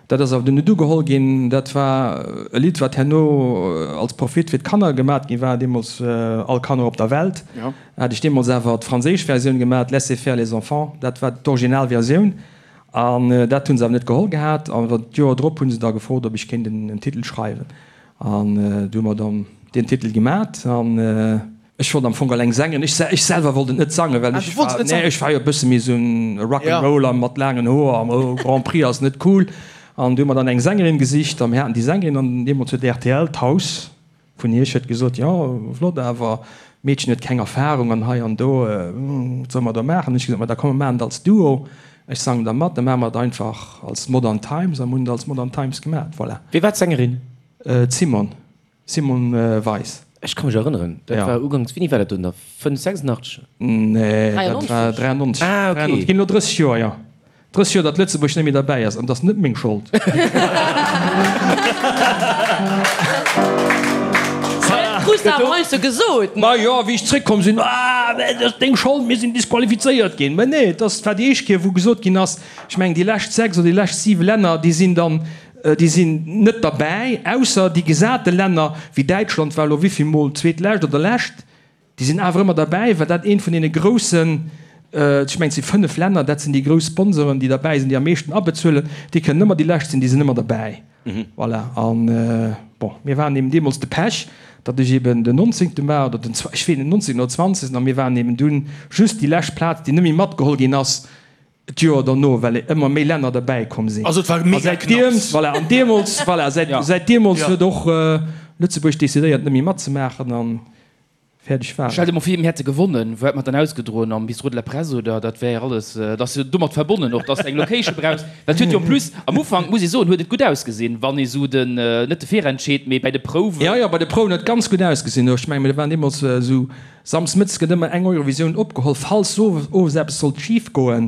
dat ass awer dunn net ugeholl ginn. Dat war e Lidd, wat herno als Profit fir d'Kanner gemat gi war, deemools All Kanner op der Welt. Jo. Hat ech deemools awer d'franséisch Versioun gemat, Laissez faire les enfants, dat war d'Originalversioun. An dat hu se awer net geholl gehat. An d'Joer drop hu se da gefrot, ob ech kéint en Titel schreiwen. An du hu mer dann deen Titel gemat. An ech wollt am Fong eleng sangen. Ech ech selwer wollt et net sangen, well ech war, nee, ech war jo e bësse méi esou en Rock'n'Roller mat laangen Hoer an oh, Grand Prix ass net cool. An du hu mer dann eng Sängerin gesicht a mir haten déi Sängerin an deemools huet rtl, d'Haus, Vun Iech huet gesot, jo, flott, awer d'Meedchen huet keng Erfahrung an hei an do, wat solle mer da maachen? Hunn ech gesot, ma da komm mer maachen et als Duo, ech sangen da mat, da maache mer et einfach als Modern Times a mir hunn et als Modern Times gemat, voilà. Wie war d'Sängerin? D'Simone, Simone Weis. Ech ka mech erënneren, dat war uganks, wéini war dat do nach, 5, 86? Nee, dat war 93. Ah, okay. Ginn elo 30 Joer, jo. 30 Joer datt Lëtzebuerg net méi derbäi ass, an et ass net meng Schold. Krus de awer heiansdo gesot. Ma jo, wéi ech zréckkomm sinn, ah, et ass deng Schold, mir sinn disqualifizéiert ginn. Mä nee, et ass, war déi éischt Kéier, wou gesot ginn ass, ech mengen déi lescht 6 oder déi lescht 7 Länner, déi sinn dann, déi sinn net derbäi, ausser déi gesate Länner wéi Däitschland war elo wéivill mol zweetlescht oder lescht. Déi sinn awer ëmmer derbäi, well dat eent vun deene groussen, ech mengen et si 5 Länner, dat sinn déi grouss Sponsoren, déi derbäi sinn, déi am meeschten abezuelen, déi kënnen ëmmer déi lescht sinn, déi sinn ëmmer derbäi. Voilà. An, bon, mir waren eben deemools de Pech, datt ech eben den nonzéngte war oder den, ech weess net, nonzéngten oder zwanzegsten, a mir waren eben dunn just déi lescht Plaz, déi net méi matgeholl ginn ass d'Joer derno, well ëmmer méi Länner derbäi komm sinn. Also et war mega knapps. Voilà, an deemools, voilà, säit, säit deemools huet och Lëtzebuerg decidéiert, net méi matzemaachen an Fäerdeg war Stell dir mol vir, mir hätte gewonnen, wou hätt mer dann ausgedroen? Am Bistrot de la Presse oder? Dat wär alles, dat ass jo domat verbonnen och, dass de eng Location brauchs. Well et huet jo en plus, am Ufank muss ee soen, huet et gutt ausgesinn, wann ee sou den, net de Virentscheed, mee bäi de Prouwen. Jo, jo, bei de Prouwen huet et ganz gutt ausgesinn. Ech mengen, mir waren deemools esou, samsdes mëttes gëtt ëmmer eng Eurovisioun opgeholl, falls owes eppes sollt schif goen,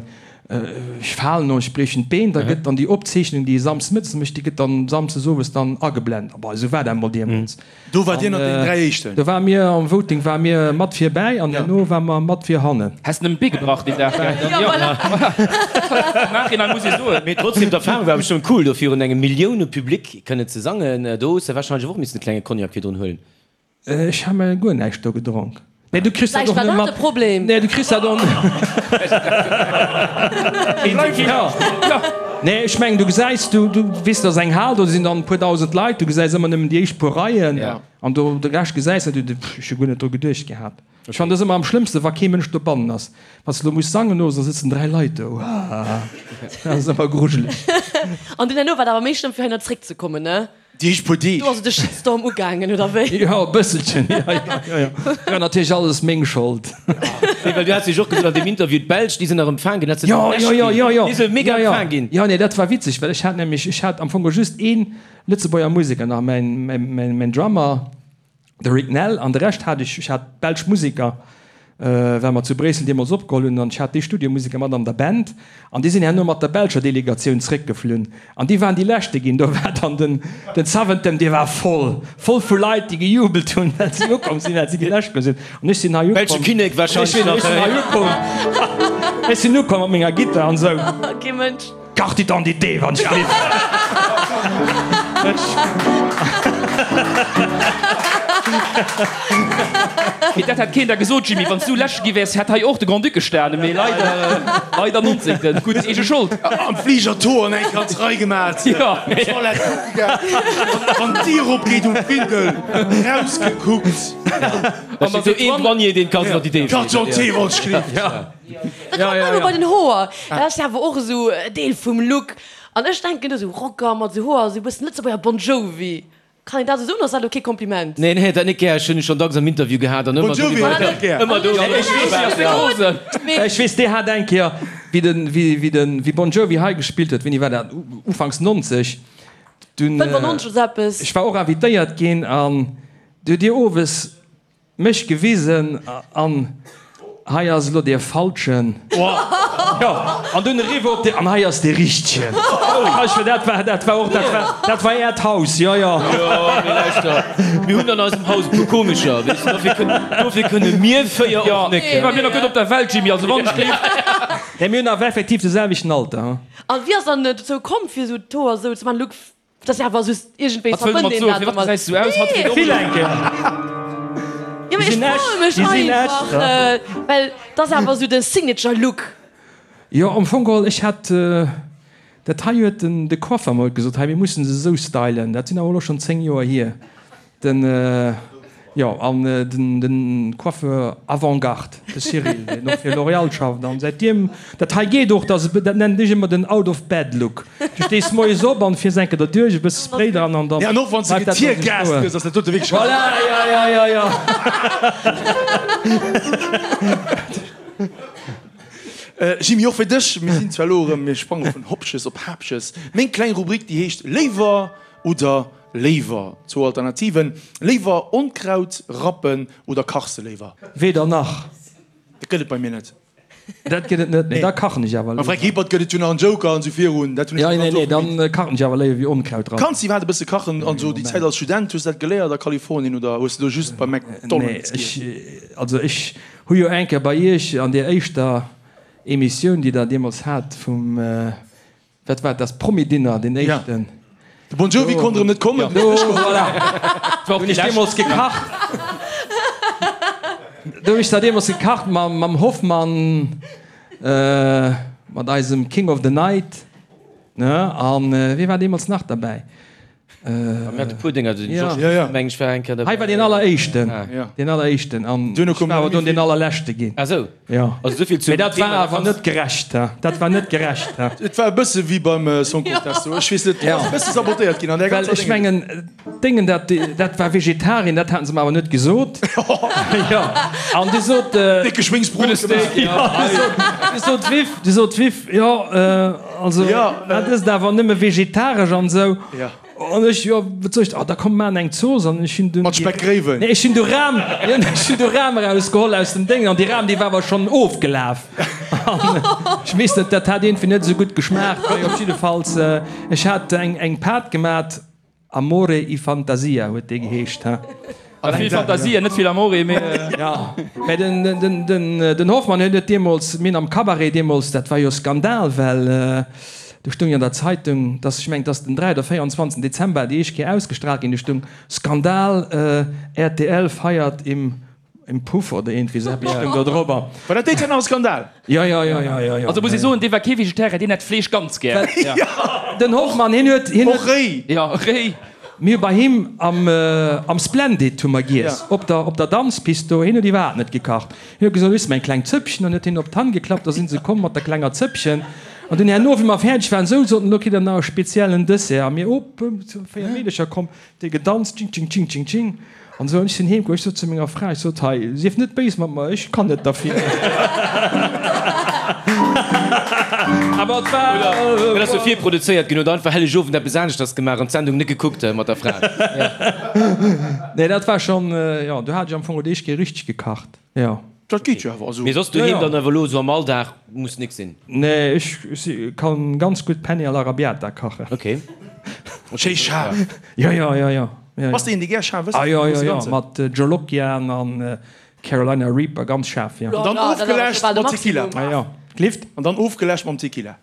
ech falen oder ech briechen d'Been, da gëtt dann déi Opzeechnung, déi ee samsdes mëttes mécht, déi gëtt dann samsdes owes dann ageblent. Bon, esou war dat emol deemools. Do war Dir ënnert den 3 éischten. Do ware mir am Voting ware mir mat virbäi an herno ware mer mat vir hannen. Häss nëmmen d'Bee gebrach deen Dag, gell? Jo, voilà. Am Nachhinein muss ee soen. Mee trotzdem, d'Erfahrung war bestëmmt cool, do virun engem Millioune-Public kënnen ze sangen. Do hues de wahrscheinlech och missen e klenge Cognac virdrun huelen. Ech ha mer guer näischt do gedronk. Nee, du kriss dat Vläicht och war net dat mat. de Problem. Nee, du kriss dat och Nee, ech mengen, du gesäis, du, du weess, dat ass eng Hal, do sinn dann e puer dausend Leit, du gesäis ëmmer nëmmen déi éischt puer Reien an do de Rescht gesäis de net. Ech hu guer net dru geduecht gehat. Ech fannen dat ëmmer am schlëmmsten, wa kee Mënsch dobannen ass. Wann s de elo muss sangen owes, da sëtzen 3 Leit do. Dat ass ëmmer grujeleg. An dunn herno war et awer méi schlëmm, fir heihinner zréckzekommen, ne? Déi éischt puer Deeg. Do ass de Shitstorm ugaangen, oder wéi? Jo, e bësselchen, jo, jo, jo, jo. War natierlech alles meng Schold. Nee, well du has jo och gesot an deem Interview, d'Belsch, déi sinn nach empfaang ginn, dat se Jo, jo, jo, jo, jo. Déi sinn mega Jo, jo. empfaang ginn. Jo, nee, dat war witzeg, well ech hat nämlech, ech hat am Fong just ee Lëtzebuerger Museker nach, mäin, mäin, mäin, mäin Drummer. De Rick Nell an de Rescht hat ech, ech hat belsch Museker, well mer zu Bréissel deemools opgeholl hunn, an ech hat déi Studiomuseker mat an der Band an déi sinn herno mat der belscher Delegatioun zréckgeflunn an déi waren déi leschte ginn. Do war dann den, den Zaventem, dee war voll, voll vu Leit, déi gejubelt hunn, well si ukomm sinn, well si déi lescht sinn. An ech sinn hei ukomm. Belsche Kinnek warscheinlech nach. Ech sinn hei ukomm, ech sinn ukomm mat menger Gittar an esou. Kee Mënsch. Carte d'identité, wann ech gelift. Mee dat hätt keen der gesot, Jimmy. Wann s du Leschte gi wäers, hätt hei och de Grand-Duc gestanen. Mee leider, leider 19. Gutt, eege Schold. Am Fliger d'Hoer eng ganz Rei gemat, Toilette kucke gaang, wann d'Dier opgeet um Findel, rausgekuckt. An da seet een Douanier, deen d'Carte d'identité. Carte d'identité wollt ech gelift. Da kommt mer elo bei den Hoer. Dat ass jo awer och esou e Deel vum Look. An ech denken do esou Rocker mat esou Hoer, esou e bëssen Lëtzebuerger Bon Jovi. Kann een dat esou soen, ass dat elo kee Kompliment? Nee, nee, dat net gär. Ech hunn e schonn dacks am Interview gehat an ëmmer do ëmmer do. Ech weess, dee hat eng Kéier, wéi den, wéi den, wéi Bon Jovi hei gespillt huet, wéini war dat, ufanks 90, dunn, 95 oder sou eppes. Ech war och invitéiert ginn an du hutt Dir owes Mech gewisen an hei ass elo dee falschen. Jo, an dunn eriwwer op dee, an hei ass dee richtegen. Ech war, dat war, dat war och, dat war, dat war äert Haus, jo, jo. Jo, mee lauschter, mir hunn an eisem Haus e puer Komescher, weess de, dofir kënnen, dofir kënne mir 4 och net. Jo, mir nach gutt op der Welt, Jimmy, also wann ech géif. Nee, mir hunn awer effektiv de selwechten Alter, hu. An wéi ass dann dozou komm, fir esou d'Hoer esou ze maachen? Luc, Dat ass awer just iergendwéi Wat wëll de mat verbënnt een soen? dat Firwat domat. gesäis du aus? Hatt geet och Vill elo. eng Kéier. Jo, mee Déi ech sinn froe echt, mech déi sinn einfach, echt, ja. well dat ass awer esou de Signature Look. Jo, am Fong geholl, ech hat dat hei huet den de Coiffer mol gesot, hei mir mussen se esou stylen, dat sinn awer elo schonn 10 Joer hier. Den, jo, an den, den Coiffeur Avant-Garde, de Cyril, deen och fir L'Oréal schafft, an säitdem dat hei geet och, dass, dat nennen ech ëmmer den Out-of-Bed-Look. Du stees moies op an fiers eng Kéier derduerch, e bësse Spray dran an dann Ja, an och wann s de bleift dat esou getiergast stoen. gëss, ass dat dote wierklech. Voilà, ja, ja, ja, ja. Jimmy, och fir dech, mir sinn zwar elo erëm, mir sprange vun Hopches op Haapches, meng kleng Rubrik, déi heescht Léiwer oder Léiwer, zwou Alternativen, Léiwer Onkraut rappen oder kachs de léiwer? Weder nach. Dat gëtt et bei mir net. Dat gëtt et net, nee. Da kachen ech awer Beim Fränk léiwer. Hippert gëtt et jo nach en Joker an esou virun, dat hunn ech Ja, ganz nee, nee, oft gemeet. dann kachen ech awer léiwer wéi Onkraut rappen. Kanns de iwwerhaapt e bësse kachen an esou déi Zäit als Student? Hues de dat geléiert a Kalifornien oder hues de do just bei McDonald's Nee, giess? ech, also ech hu jo eng Kéier bei iech an deer éischter Emissioun, déi der deemools hat vum, Wat war das Promi-Dinner, deen éischten? De Bon Jovi konnt erëm net kommen. Do, voilà. Do hunn ech deemools gekacht. Do hunn ech da deemools gekacht mam, mam Hoffmann, mat eisem King of the Night, ne? An wie war deemools nach derbäi? Mir hate puer Dénger, den Georges Ja, ja. meng ech war eng Kéier Hei war deen alleréischten, deen alleréischten an Duerno ech koum war awer nach dunn méi deen vill. allerleschte ginn. Ah sou. Jo. Also souvill zum Mee dat war Thema, da awer kanns. net gerecht, ha. Dat war net gerecht, ha. Et war e bësse wéi beim Song Contest do. Ech weess net, do ass e bësse sabotéiert ginn an där Well ganzer ech Déngen. mengen, Déngen, dat, dat war Vegetarien, dat haten se mer awer net gesot. Jo. An du sot. Décke Schwéngsbrot gemaach. Jo, du sot d'Viv, du sot d'Viv, jo, also dat ësst awer nëmme vegetaresch an esou. An ech, jo, wat soll ech, ah, da komm maachen eng Zooss. An ech hunn dunn. Mat Speckgréiwen. Nee, ech hunn du Ram, jo, ech hunn du Ram erausgeholl aus dem Déngen an déi Ram, déi war awer schonn ofgelaf. An ech weess net, dat hat iergendwéi net esou gutt geschmaacht. Mee op jiddefalls, ech hat eng, eng Pat gemat, Amore y Fantasia huet déi geheescht, ha. Vill Fantasia, net vill Amore, mee. Jo, mä den, den, den, den Hoffmann huet et deemools, mir hunn am Cabaret deemools, dat war jo Skandal, well do stoung jo an der Zeitung, dass, ech mengen, et ass den 3 oder 24 Dezember déi éischt Kéier ausgestrahlt ginn, do stoung, Skandal, rtl feiert im Im Puff oder iergendwéi esou eppes stoung do drobber. War dat déi Zäit nach e Skandal? Jo, jo, jo, jo, jo, jo. Also muss ee soen, dee war kee Vegetarier, deen hätt Fleesch ganz gär. Den Hoffmann, hien huet, hien Och réi. Jo, réi. Mir hu bei him am, am Splendid hu mer giess, op der, op der Danzpist do. Hien huet iwwerhaapt net gekacht. Hien huet gesot, Hues de mer eng kleng Zëppchen? An huet hien op d'Hand geklappt, da si se komm mat der klenger Zëppchen. An dunn herno, wéi mer fäerdeg waren, sou soten, Elo kritt der nach e speziellen Dessert. A mir, op, 4 Meedercher komm, déi gedanzt, tsching, tsching, tsching, tsching, tsching. An esou, an ech sinn heem komm, ech sot zu menger Fra, ech sot, hei, sief net béis mat mer, ech kann net derfir. Awer et war. Dat ass jo virproduzéiert ginn, huet einfach Hellegowend eppes aneschters gemaach an d'Sendung net gekuckt mat der Fra. Nee, dat war schonn, jo, do hat ech am Fong et éischt Kéier richteg gekacht, jo. Dat geet jo awer, also. Mee soss doheem dann awer elo esou am Alldag muss nix sinn? Nee, ech kann ganz gutt Penne all'arrabbiata kachen. Ok. Schéi schaarf. Jo, jo, jo, jo. Bass de een dee gär schaarf ësst? Ah jo, jo, jo, mat Jolokian an Carolina Reaper, ganz schaarf, jo. An dann ofgeläscht mat Tequila. Ah jo, Glift? An dann ofgeläscht mam Tequila,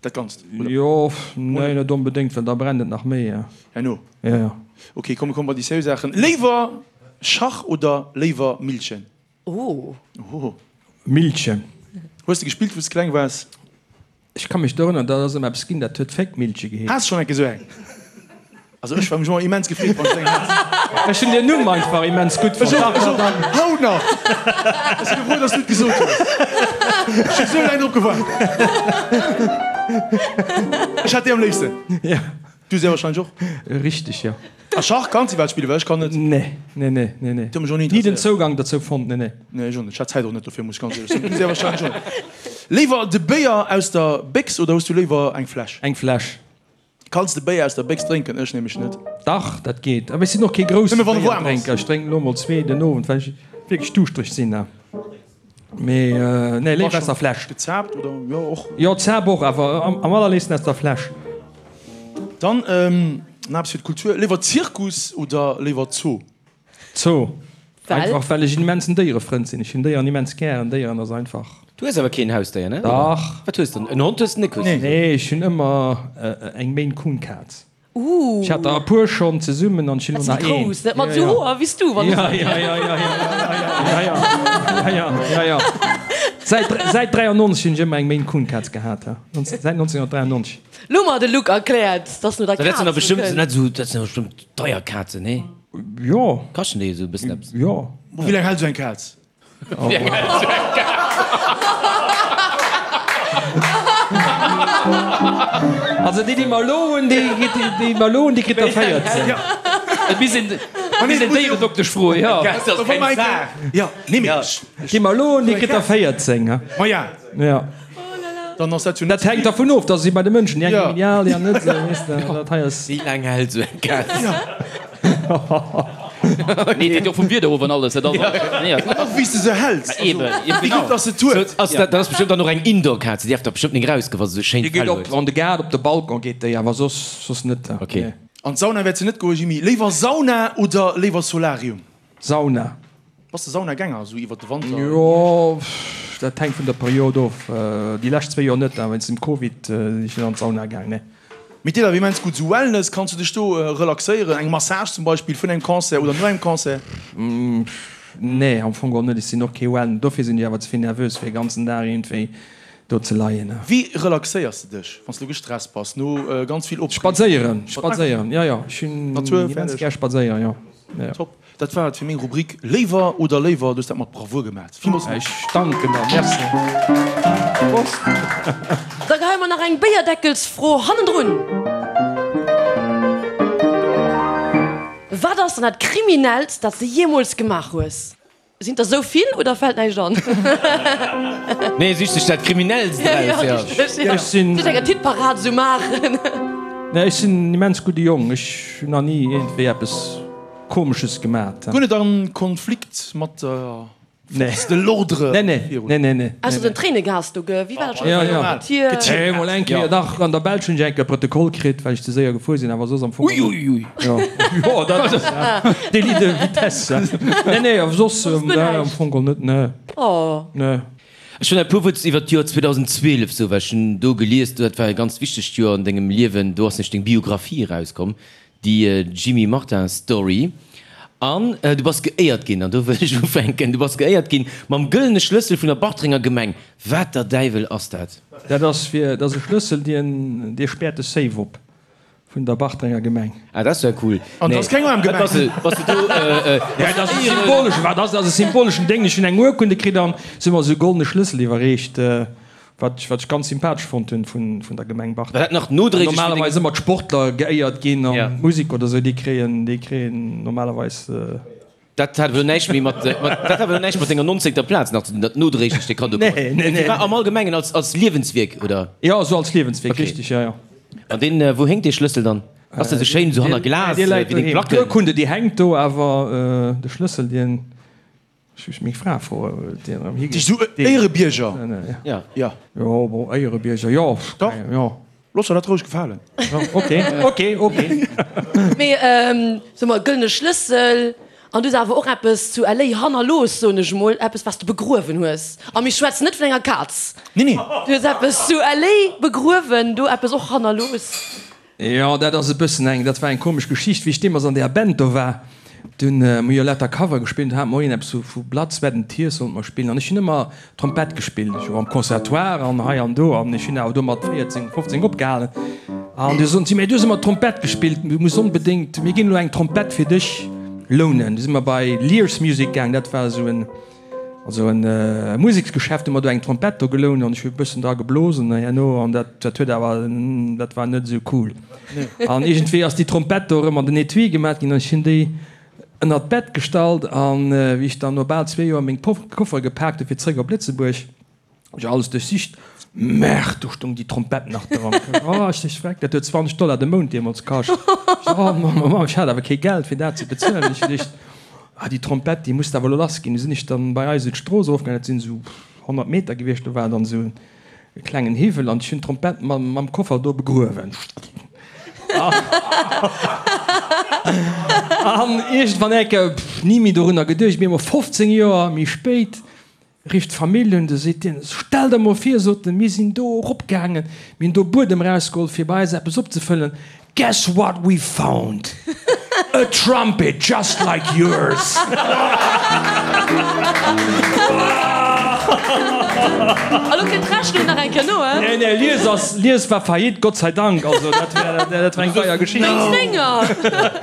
dat Ganzt, oder? Jo, nee, net onbedéngt, well da brennt et nach méi, jo. Herno? Jo, jo. Ok, komm, mir komme bei déi seriö Saachen. Léiwer. Schach oder léiwer Millchen? Oh. Oh. Millchen. Hues de gespillt wou s de kleng waars? Ech ka mech dorënneren, dat ass ëmmer eppes ginn, dat huet Féckmillche geheescht. Has schonn eng Kéier esou eng? Also ech war mech ëmmer immens gefreet, wann ech eng hat. Ech hunn den Numm einfach immens gutt fonnt. Ech och, ech och. Haut nach! Ech si frou, dass du et gesot hues. Ech hu sou laang drop gewaart. Ech hat déi am léifsten. Ja. Du sehr wahrscheinlech och. Richteg, jo. A Schach kanns iwwerhaapt spillen? Well ech kann net. Nee, nee, nee, nee, nee. Dat huet mech och ni Ni den interesséiert. Zougang dozou fonnt, nee, nee. Nee, ech och net. Ech hat d'Zäit och net dofir, muss ech ganz éierlech soen. Du sehr wahrscheinlech och net. Léiwer de Béier aus der Béchs oder hues du léiwer eng Fläsch? Eng Fläsch. Kanns de Béier aus der Béchs drénken? Ech nämlech net. Dach, dat geet. Awer ech sinn och kee grousse Nëmme wann e waarm ass. Béierdrénker. Ech drénken elo mol zwee den Owend, well ech wierklech duuschtereg sinn. Mee nee, léiwer aus der Fläsch. Gezaapt oder? Jo, och. Jo, Zaap och, awer am allerléifsten aus der Fläsch. Dann nach eppes fir d'Kultur, Léiwer Zirkus oder léiwer Zoo? Zoo. Well? Einfach well ech en immensen Déierefrënd sinn. Ech hunn Déieren immens gären. Déieren ass einfach. Du hues awer keen Hausdéier, ne? Dach. Wat hues de? En Hond hues de net? Nee, ech hunn ëmmer eng Maine Coon Kaz. Ooh. Ech hat der e puer schonn zesummen an ech hunn Dat elo nach sinn déi een. grouss, net mat esou Hoer wéi s du, wann Ja, ja, ja, ja, ja, ja, ja, ja, ja, ja. Säit, säit 93 hunn ech ëmmer eng Maine Coon Kaz gehat, ja. Säit 1993. Lo mer de Luc erkläert, dass no der Dat sinn Kaz der bestëmmt, kënnt. net esou, dat sinn der bestëmmt deier Kazen, nee? Jo. Kaschten déi esou e bëssen eppes? Jo. Wéi laang hält esou eng Kaz? Also déi, déi mer elo hunn, déi, déi mer elo hunn, déi kritt der 14. Et misst een, et misst een Déieredoktesch froen, jo. Dat ass keng Saach. Jo, nee, mee ech. Déi mer elo hunn, déi kritt der 14, ha. Ma ja. Ja. Dann ass dat jo net Dat hänkt dervun of, dass si bei de Mënschen, déi eng genial, déi aner net esou, weess de, dat hei ass. Wéi laang hält esou eng Kaz? Nee, et hänkt jo och vum Wieder of an alles, dat ass och, nee. An och wéi s de se häls, also Eben, wéi genau. gutt dass se et huet. Ass dat, dat ass bestëmmt dann och eng Indoor-Kaz, déi däerf da bestëmmt nik erausgoen, wa se esou schéin Déi geet Fell op huet. an de Gaart, op de Balcon geet déi, awer soss, soss net. Ok. Nee. An d'Sauna wäert se net goen, Jimmy. Léiwer Sauna oder léiwer Solarium? Sauna. Bass de Saunagänger, esou iwwer de Wanter? Jo, dat hänkt vun der Period of. Déi lescht zwéi Joer net, awer wéinst dem Covid sinn ech net an d'Sauna gaang, nee. Mee et deet awer immens gutt, esou Wellness, kanns du dech do relaxéieren, eng Massage zum Beispill vun engem Concert oder no engem Concert? Nee, am Fong geholl net. Ech sinn och kee Wellness, dofir sinn ech awer ze vill nervös fir e ganzen Dag iergendwéi do ze leien. Wéi relaxéiers de dech, wann s du gestresst bass no ganz vill Opreegung? Spadséieren, spadséieren, jo jo, ech hunn Natur, immens fäerdeg. gär spadséieren, jo. Top. Dat war et fir meng Rubrik Léiwer oder léiwer. Du hues dat mat Bravour gemat. Villmools Merci. Ech danken der. Merci. Prost. Da geheie mer nach eng Béierdeckelsfro hannendrun. Wat ass dann dat Kriminellst, dat s de jeemools gemaach hues? Sinn der sou vill oder fält näischt an? Nee, sich sech dat Kriminellst eraus, jo. Ech sinn. Sech eng Hitparad sou maachen. Nee, ech sinn en immens gudde Jong. Ech hunn nach ni iergendwéi eppes Komesches gemat. Guer net an Konflikt mat der Force de l'ordre Nee, nee, nee, nee, nee. Ausser den Tréinegas do, ge? Wéi war dat scho? Ja, ja. Tier. Nee, mol eng Kéier, dach, an der Belsch hunn ech eng Kéier Protokoll kritt, well ech ze séier gefuer sinn, awer soss am Fong. Ui, ui, ui. Jo, jo, dat ass Délit de vitesse. Nee, nee, awer soss am Fong geholl net, nee. Oh. Nee. Ech hunn e puer Wuert iwwer d'Joer 2012 sou, well ech hunn do gelies, dat war e ganz wichtegt Joer an dengem Liewen, do ass nämlech deng Biographie erauskomm, déi Jimmy Martin Story. An du bass geéiert ginn, an do wëll ech ufänken, du bass geéiert ginn mam gëllene Schlëssel vun der Bartrenger Gemeng. Wat der Däiwel ass dat? Dat ass fir, dat ass e Schlëssel, dien, dee späert de Safe op vun der Bartrenger Gemeng. Ah, dat ass ja cool. An dat ass keng aarm Gemeng. Bass de, bass de do, Ja, dat ass e symboleschen, wat ass dat? Ass e symboleschen Déng. Ech hunn eng Urkunde kritt an se hu mer esou e goldene Schlëssel iwwerreecht. Wat ech, wat ech ganz sympathesch fonnt hunn vun, vun der Gemeng War Bartreng. dat nach nodréiglech fir deng. Normalerweis ëmmer d'Sportler geéiert ginn an Ja. d'Musek oder sou, déi kréien, déi kréien normalerweis. Dat hat elo näischt méi mat, mat, dat hat elo näischt mat denger nonzéngter Plaz nach ze dinn, dat nodréiglech dee Kaddo Nee, krut. nee, nee. Dee war am Allgemengen als, als Liewenswierk, oder? Jo, esou als Liewenswierk, Okay. richtig, jo, jo. An deen, wou héngt dee Schlëssel dann? Ass dee sou schéin esou hanner Glas, Dee wéi läit deng doheem. Placken? D'Urkunde, déi hänkt do, awer de Schlëssel, dien. Ech muss meng Fra froen, wou déi erëm higeet. Sou Éierebierger? Ja. Ja. Jo, bon, Éierebierger, jo. Dach. Jo. Looss der dat roueg gefalen. Ok, ok, ok. Mee so mol, gëllene Schlëssel, an du hues awer och eppes zu LA hannerlooss, soen ech mol, eppes wat s de begruewen hues. A mir schwätzen net vun enger Kaz. Nee, nee. Du hues eppes zu LA begruewen, do eppes och hannerlooss. Jo, dat ass e bëssen eng, dat war eng komesch Geschicht. Wéi ech deemools an deeër Band do war, Dunn hu mir jo lauter Cover gespillt, do hate mer och een eppes vu Blood, Sweat and Tears sollte mer spillen an ech hunn ëmmer Trompett gespillt. Ech war am Conservatoire an hei an do an ech hunn awer do mat 14, 15 opgehalen. An du soten si, Mee du hues ëmmer Trompett gespillt, du muss onbedéngt, mir ginn elo eng Trompett fir dech lounen. Du si mer bei Lear's Music gaang, dat war esou en, also en Museksgeschäft, hu mer do eng Trompett do gelount an ech hu e bëssen dra geblosen herno an dat, dat huet awer, dat war net esou cool. An iergendwéi ass déi Trompett do erëm an den Etui gemat ginn an ech hunn déi ënnert d'Bett gestallt an wéi ech dann no bal zwee Joer meng Koffere gepaakt hu fir zréck op Lëtzebuerg, hu ech alles duerchsicht, Merde, do stoung déi Trompett nach dran. Oh, ech sech freck, dat huet 20 Dollar de Mount deemools kascht. Ech sou, oh Mamm, oh Mamm, ech hat awer kee Geld fir dat ze bezuelen. Ech hu geduecht, ah déi Trompett, déi muss de awer elo lass ginn. Du sinn ech dann bei eis esou d'Strooss erofgaangen, dat sinn esou 100 Meter gewiescht, do war dann esou E klengen Hiwwel an ech hunn d'Trompett mam Koffer do begruewen. An iergendwann enke, ni méi dorunner geduecht, mee emol 15 Joer méi spéit rifft d'Famill un, du seet deen, Stell der mol vir, sot en, mir sinn do eropgaangen, mir hunn do Buedem erausgeholl fir bei eis eppes opzefëllen, Guess what we found? A trumpet just like yours! A lo kënnt d'Rechnung nach eng Kéier no, he? Nee, nee, Lies ass, Lies war faillite, Gott sei Dank, also dat wär, dat war eng deier Geschicht. Wéinst denger!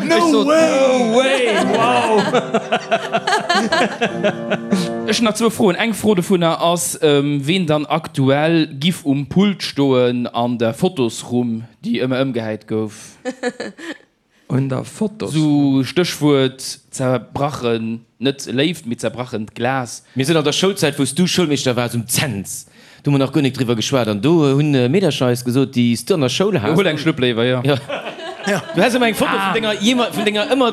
No way! No way! Wow! Ech hunn nach zwou Froen. Eng Fro dovunner ass, ween dann aktuell giff um Pult stoen an der Fotosrumm? Déi ëmmer ëmgehäit gouf. Un der Fotos. Sou Stéchwuert zerbrachen, net Léift, mee zerbrachent Glas. Mir sinn an der Schoulzäit, wou s du Schoulmeeschter waars, um Cents, do hu mer nach guer nik driwwer geschwat an do hunn Meedercher eis gesot, déi s du an der Schoul has. Huel eng Schlupp léiwer, jo. Jo. Du häss ëmmer eng Foto vun denger, vun denger ëmmer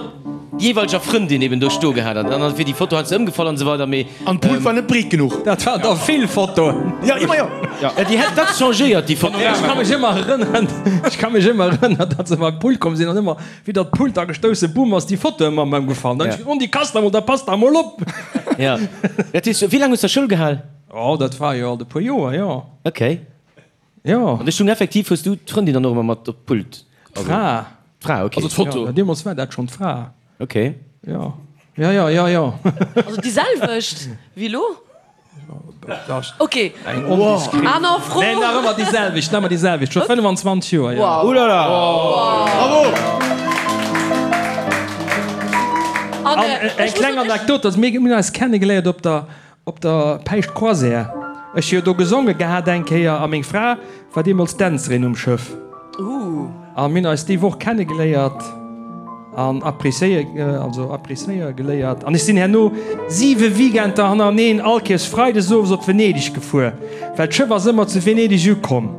jeeweileger Frëndin eben do sto gehat an dann wier déi Foto heiansdo ëmgefall an esou weider, mee. An d'Pult war net breet genuch. Dat waren der vill Fotoen. Jo, ëmmer jo. Ja, déi hätt dacks changéiert, déi Foto. Ech ka mech ëmmer erënneren, ech ka mech ëmmer erënneren, datt se beim Pult komm sinn an ëmmer widder d'Pult da gestouss sinn, bumm, ass déi Foto ëmmer ëmgefall. Dann hu ech gesot, Oh, déi kasst emol, da passt der emol op. Ja, dat heescht, wéi laang hues de Schoul gehal? Oh, dat war jo alt e puer Joer, jo. Ok. Jo. An ech hunn effektiv, hues du d'Frëndin dann och ëmmer mat op d'Pult? D'Fra. D'Fra, ok. Also d'Foto. Jo, deemools war dat schonn d'Fra. Ok. Jo, jo, jo, jo, jo. Also déi selwecht wéi elo? Ok. Eng ondiskret. Aner Fro. Nee, nach ëmmer déi selwecht, nach ëmmer déi selwecht, scho 25 Joer, jo. Wow. Oulala. Bravo! An An eng kleng Anekdot, also mir hunn eis kennegeléiert op der Op der Päischt Croisière. Ech hu jo do gesonge gehat eng Kéier a meng Fra war deemools Dänzerin um Schëff. A mir hunn eis déi Woch kennegeléiert an appréciéier, also appréciéier geléiert. An ech sinn herno siwe Weekender hannereneen all Kéiers freides owes op Venedeg gefuer, well d'Schëff ass ëmmer zu Venedeg ukomm.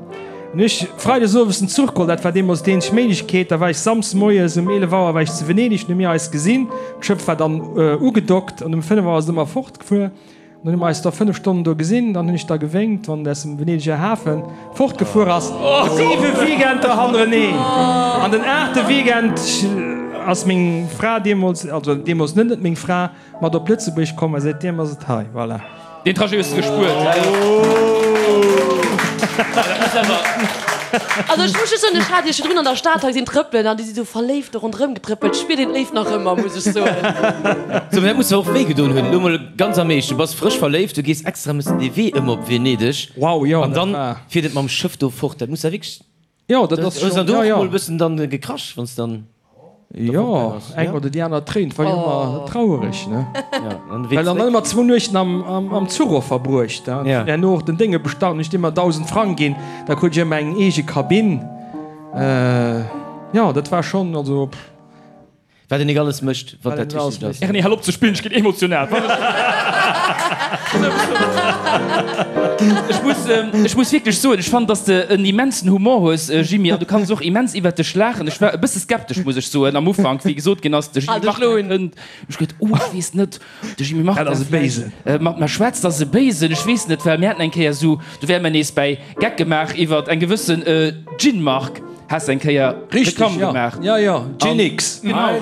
An hu ech freides owes den Zuch geholl, dat war deemools déi eenzeg Méiglechkeet. Da war ech samsdes moies um 11 Auer war ech zu Venedeg, hunn mir eis gesinn, d'Schëff war dann ugedockt an um 5 Auer ass et ëmmer fort. Gefuer. Dann hu mer eis da 5 Stonnen do gesinn. Dann hunn ech da gewénkt, wann en aus dem Venedeger Hafe fortgefuer ass. Siwe Weekender hannereneen. An den aachte Weekend ass meng Fra deemools, also deemools net net meng Fra, mat op Lëtzebuerg komm a säitdeem ass et hei. Voilà. Deen Trajet hues de gespuert. Also ech muss just soen, ech hat iech virdrun an der Stad hei gesinn trëppelen an déi si sou verléift do ronderëm getrëppelt. Spiert een d'Léift nach ëmmer, muss ech soen. Sou, mee dat muss der och wéi gedoen hunn. Elo mol ganz am Eescht, du bass frësch verléift, du gees extra mëssen dee Wee ëmmer op Venedeg. Wow, jo, An dat dann war. fiert et mam Schëff do fort. Dat muss der wierklech. Jo, dat ass Hues schon, dann do jo, och jo. mol e bëssen dann gekrasch, wann s dann. Jo, eng oder déi aner Tréin, 't war jo ëmmer trauereg, ne? Ja, an de Wee Well dann zréck. ëmmer zwou Nuechten am, am, am Zuch och verbruecht, ne? Ja. Herno och den Dénge bestallt, hunn ech deem ëmmer 1.000 Frang ginn, da krut ech ëmmer eng eege Kabinn. Jo, dat war schonn, also pff. Wat een nik alles mécht, wann Wat dat een alles richtegt ass. mécht. Erni, hal op ze spillen, ech ginn emotional. Ech muss, ech muss wierklech soen, ech fannen, dass de en immensen Humor hues, Jimmy, an du kanns och immens iwwert dech laachen. Ech war e bësse skeptesch, muss ech soen, am Ufank, wéi gesot ginn ass, de Jimmy Martin kënnt. Ech geduet, oh, ech weess net, de Jimmy Martin Dat ass e Béisen. mat mer schwätzt, ass e Béisen, ech weess net, well mir haten eng Kéier esou, do wäre mer nees bäi Geck gemaach iwwert eng gewëssen Gin-Mark, has eng Kéier Reklamm gemaach. Jo, jo, Gin-X. Genau.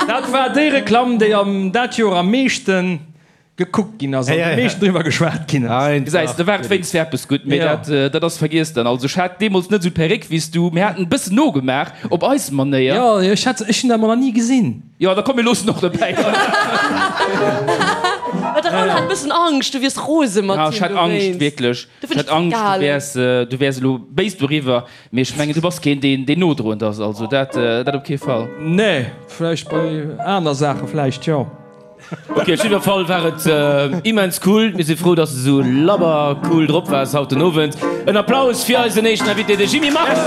Dat war déi Reklamm, déi am dat Joer am meeschten. Gekuckt ginn ass an am meeschten driwwer geschwat ginn ass. Gesäis de, war et wéinst fir eppes gutt, mee dat, dat ass vergiess dann. Also ech hat deemools net esou d'Perréck wéi s du, mir haten e bëssen nogemaach op eis Manéier. Jo, ech hat, ech hunn dat mol nach ni gesinn. Jo, da komm mir loossen och dobäi. Well de Raoul hat e bëssen Angscht, du wiers rose mat him dowéinst. Jo, ech hat Angscht, wierklech. Ech hat Angscht, du wäers, du wäers elo béis doriwwer, mee ech mengen, du bass keen, deen, deen nodroend ass, also dat, dat op kee Fall. Nee, vläicht bei aner Saache vläicht, jo. Ok, op jidder Fall war et immens cool. Mir si frou, dass de sou labber cool drop waars haut den Owend. En Applaus fir eisen éischten Invité, de Jimmy Marx!